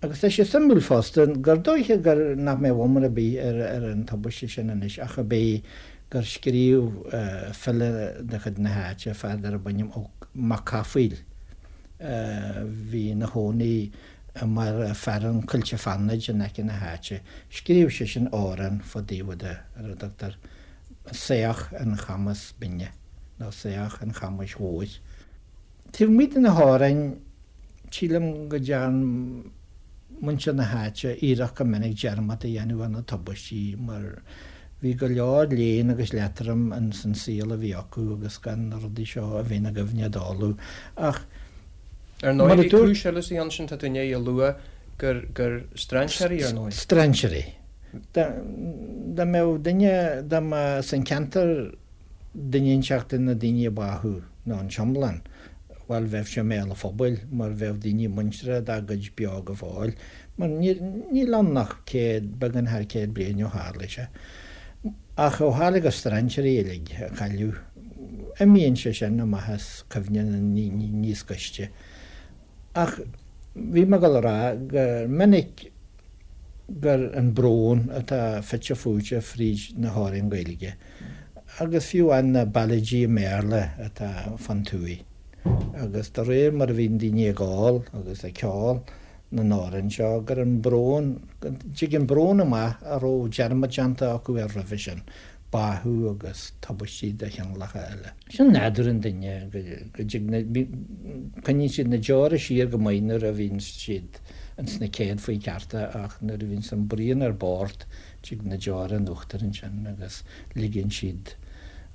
Agus tá sé suimiúil fosta gur dóiche gur nach mbeadh iomrá ar bith ar ar an tubaiste sin anois ach ab é gur scríobh file de chuid na háite, fear darb ainm Ó Mac Cathmhaoil, a bhí ina chónaí i mbarra fearainn Coillte Fánaid in aice na háite, scríobh seisean amhrán fá dtaobh de ar a dtugtar Saoch an Chamais Binne. nó Saoch an Chamais Mhóir. Taobh amuigh de na hamhráin, sílim go dtearn muintir na háite iarracht go minic dearmad a dhéanamh ar na tubaistí mar bhí go leor léinn agus leatroim ins an saol a bhí acu agus gan na rudaí seo a bheith ina gcuimhne dóibh. Ach
Ar ndóigh, bhí cúis eile sa cheann sin, tá tú i ndiaidh a lua gur gur strainséirí, ar ndóigh.
Strainséirí. Dá mbeadh duine, dá mba as an ceantar duine inteacht de na daoine a báthadh, nó an t-iomlán, bhuel, bheadh sé i mbéal an phobail, mar bheadh daoine muinteartha dá gcuid beo go fóill, mar níl ann ach céad, beagán thar chéad bliain ó tharla sé. Ach ó tharla gur strainséirí uilig a cailleadh, imíonn sé sin amach as cuimhne na ndaoine níos gaiste. Ach bhí mé ag dul a rá gur minic gur an brón atá fite fuaite fríd na hamhráin Ghaeilge agus fiú amháin na ballaidí i mBéarla atá fán tuaith. Agus de réir mar a bhíonn daoine ag ól agus ag ceol na n-amhrán seo, gur an brón, go dtig an brón amach a raibh dearmad déanta acu air roimhe sin, báthadh agus tubaistí de chineálacha eile. Sin nádúr an duine, go dtig na, coinníonn siad na deora siar go maith nuair a bhíonn siad ins na céadfaí cearta ach nuair a bhíonns an braon ar bord, tig na deora in uachtar ansin agus ligeann siad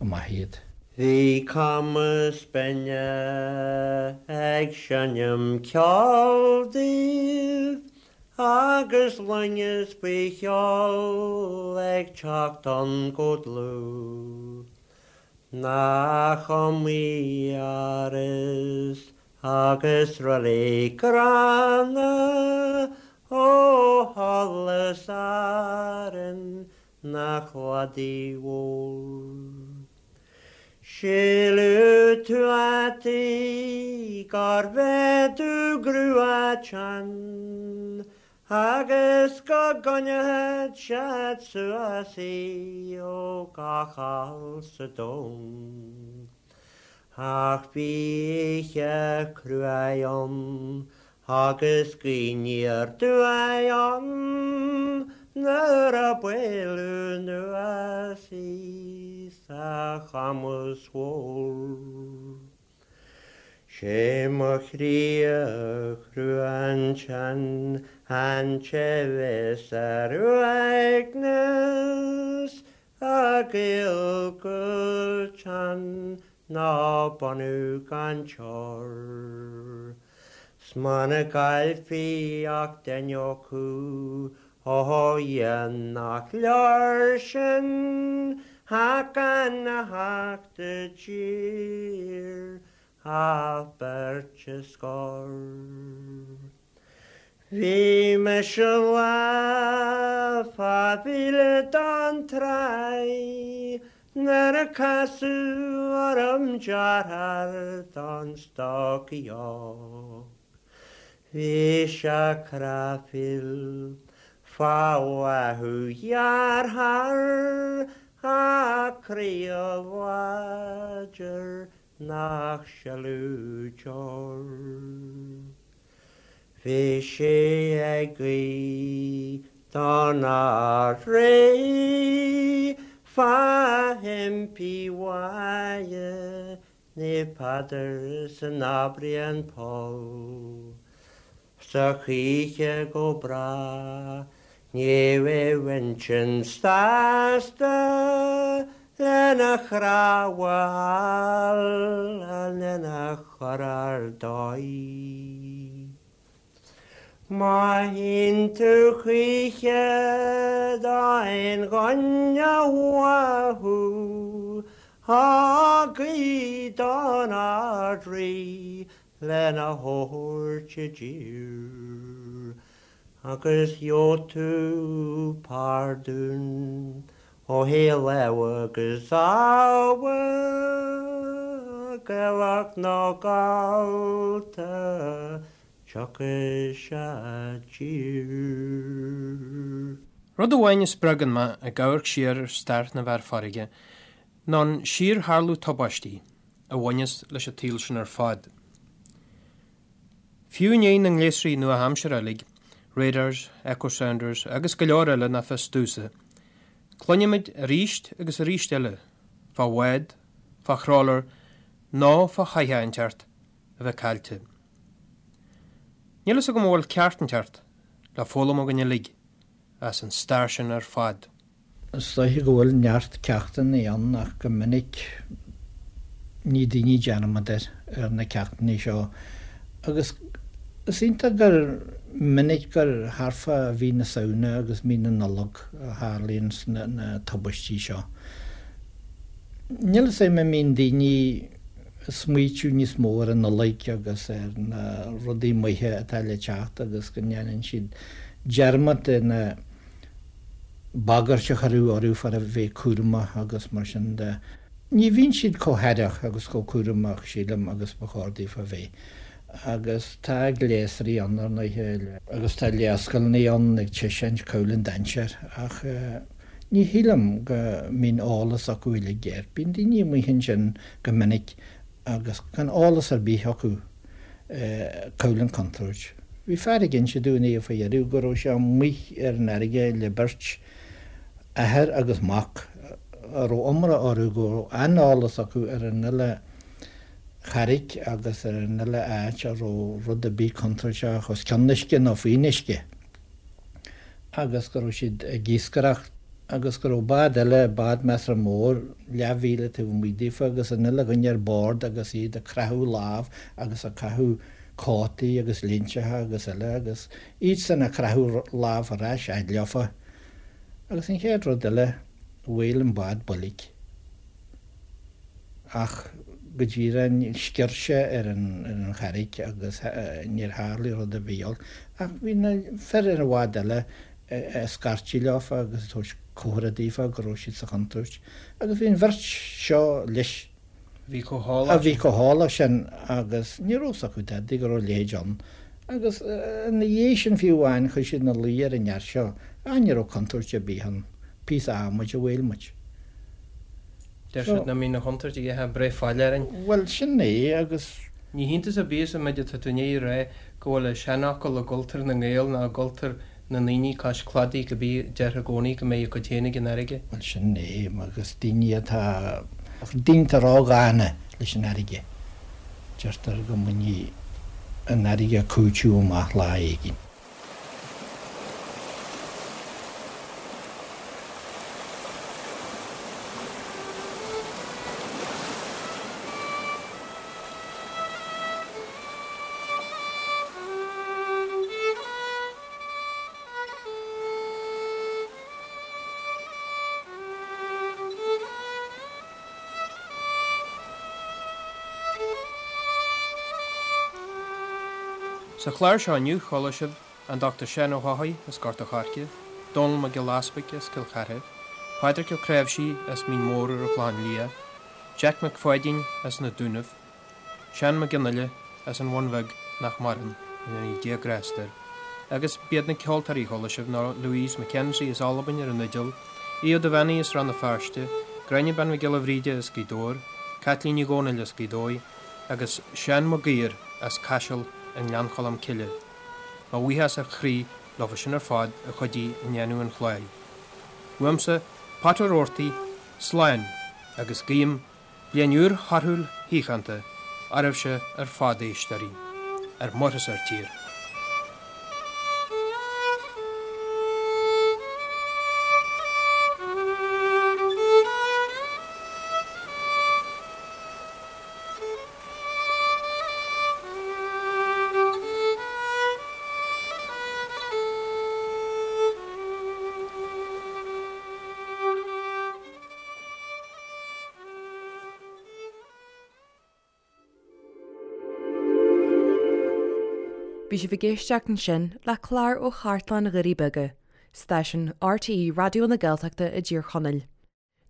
amach iad.
Bhí camas binne ag seinm ceoil daoibh agus loingeas faoi sheol ag teacht ann go dlúth. Nach iomaí áras agus reilig gránna ó sholas Árann na cladaigh mhóir. Síleadh tuataí gurbh é dúghrua teann agus go gcoinneodh siad suas í ó gach ál sa domhan. Ach bhí oíche cruaidh ann Agus gaoth aniar aduaidh ann nuair a buaileadh anuas í sa chamas mhór. Sé mo chroí a chrua ansin an té bheas ar uaigneas a ghaol go teann ná bunú gan teor. 'S muna gcaillfí ach duine acu, ó a Dhia nach leor sin ach gan a theacht i dtír ach beirt a scor. Bhí mise lá fá mhíle don tráigh nuair a casadh orm deartháir don stocaí óg. Bhí sé cráifeach fá bháthadh dhearthár ach croí láidir nach sileadh deor. Bhí sé ag guí don Ard-Rí fá impí mhaithe Naomh Peadar san Aibreán Poll 's a choíche go bráth ní raibh intinn sásta lena chnámha a fháil lena chur ar dóigh. Má théann tú choíche d'aon dhuine uathu, á guí don Ard-Rí lena thabhairt i dtír, agus gheobhaidh tú pardún ó thaobh lámha agus abha, Gaelach nó Gallta, tiocfaidh sé i dtír.
Rud amháin a spreagann mé ag amharc siar ar stair na bhfear farraige ná an síortharlú tubaistí a bhaineas leis an tsaol sin ar fad. Fiú i ndiaidh na ngléasraí nua-aimseartha uilig, radars, echo sounders agus go leor eile nach fios domhsa, cluinimid arís agus arís eile fá bhád, fá thrawler nó fá shoitheach inteacht a bheith caillte. Níl fhios agam an bhfuil ceacht inteacht le foghlaim againn uilig as an stair sin ar fad.
Is dóiche go bhfuil neart ceachtanna ann ach go minic ní daoine dearmad air ar na ceachtanna seo agus is iontach gur minic gur thart fá mhí na Samhna agus mí na Nollag a tharlaíonn na tubaistí seo. Níl fhios a'm an mbíonn daoine ag smaoitiú níos mó ar an Nollaig agus ar na rudaí maithe atá le teacht agus go ndéanann siad dearmad de na bagairt a cuireadh orthu fá a bheith cúramach agus mar sin de. Ní bhíonn siad chomh haireach agus chomh cúramach, sílim, agus ba chóir daofa a bheith. Agus tá gléasraí ann, ar ndóighe, agus tá léarscáileanna ann ag taispeáint cá bhfuil an dainséar, ach ní shílim go mbíonn eolas acu uilig air. Bíonn daoine amuigh ansin go minic agus gan eolas ar bith acu cá bhfuil an chontúirt. Bhí fear ag inse dúinn é faoi dheireadh go raibh sé amuigh ar an fharraige le beirt, athair agus mac, a raibh iomrá orthu go raibh an-eolas acu ar an uile charraig agus ar an uile áit a raibh rud ar bith contúirteach os cionn uisce nó faoin uisce agus go raibh siad ag iascaireacht agus go raibh bád eile, bád measartha mór, leathmhíle taobh amuigh daofa agus an uile dhuine ar bord agus iad ag croitheadh lámh agus ag caitheamh cótaí agus léinteacha agus eile agus iadsan ag croitheadh lámh ar ais fhad leofa agus an chéad rud eile, bhuail an bád boilg. Ach go díreach sciorr sé ar an charraig agus níor tharlaigh rud ar bith olc. Ach bhí na fir ar an bhád eile ag scairtigh leofa agus ag tabhairt comhartha daofa go raibh siad sa chontúirt. Agus bhí an bheirt seo leis.
A bhí chomh heolach
A bhí chomh heolach sin agus ní raibh 'fhios acu dadaí go raibh a leithéid ann. Agus ina dhiaidh sin fiú amháin chuir siad ina luí ar an fhear seo, ah ní raibh contúirt ar bith ann, píosa adhmaid a bhuail muid.
Deir siad nach mbíonn an chontúirt ag ithe breith fail orainn.
Bhuel, sin é agus.
Ní hiontas ar bith sa méid atá tú i ndiaidh a rá go bhfuil an seanfhocal i gcultúr na nGael ná i gcultúr na ndaoine cois cladaigh go bí, deirtear i gcónaí go mbeidh a gcuid féin ag an fharraige.
Bhuel, sin é agus daoine atá, daoine atá ródhána leis an fharraige, deirtear go mbainfidh an fharraige cúiteamh amach lá éigin.
Sa chlár seo inniu chuala sibh an Dr Seán Ó hEochaidh as Gort a' Choirce, Dónall Mac Giolla Easpaig as Cill Chartha, Pádraic Ó Cnáimhsí as Mín Mór ar an Chlochán Liath, Jack Mac Pháidín as na Dúnaibh, Seán Mac Fhionnghaile as an Bhun Bheag nach maireann, go ndéana Dia grásta air, agus b'iad na ceoltóirí a chuala sibh ná Louise McKenzie as Albain ar an fhidil, Aodh Ó Duibheannaigh as Rann na Feirste, Gráinne Bean Mhic Giolla Bhríde as Gaoth Dobhair, Caitlín Ní Dhomhnaill as Gaoth Dobhair agus Seán Mac Uidhir as Caiseal i nGleann Cholm Cille. Mo bhuíochas ó chroí leofa sin ar fad a chuidigh i ndéanamh an chláir. Uaimse, Pat Ó Roarty, slán agus guím Bliain úr thorthúil shíochánta oraibhse ar fad a éisteoirí, ar muir is ar tír.
Bhí sibh ag éisteacht ansin le clár ó Chartlann Dhoirí Beaga, stáisiún RTÉ Raidió na Gaeltachta i dTír Chonaill.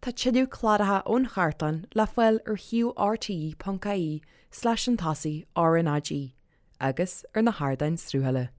Tá tuilleadh cláracha ón chartlann le fáil ar shuíomh rte.ie slash an tosaigh RnaG agus ar na hardáin sruthála.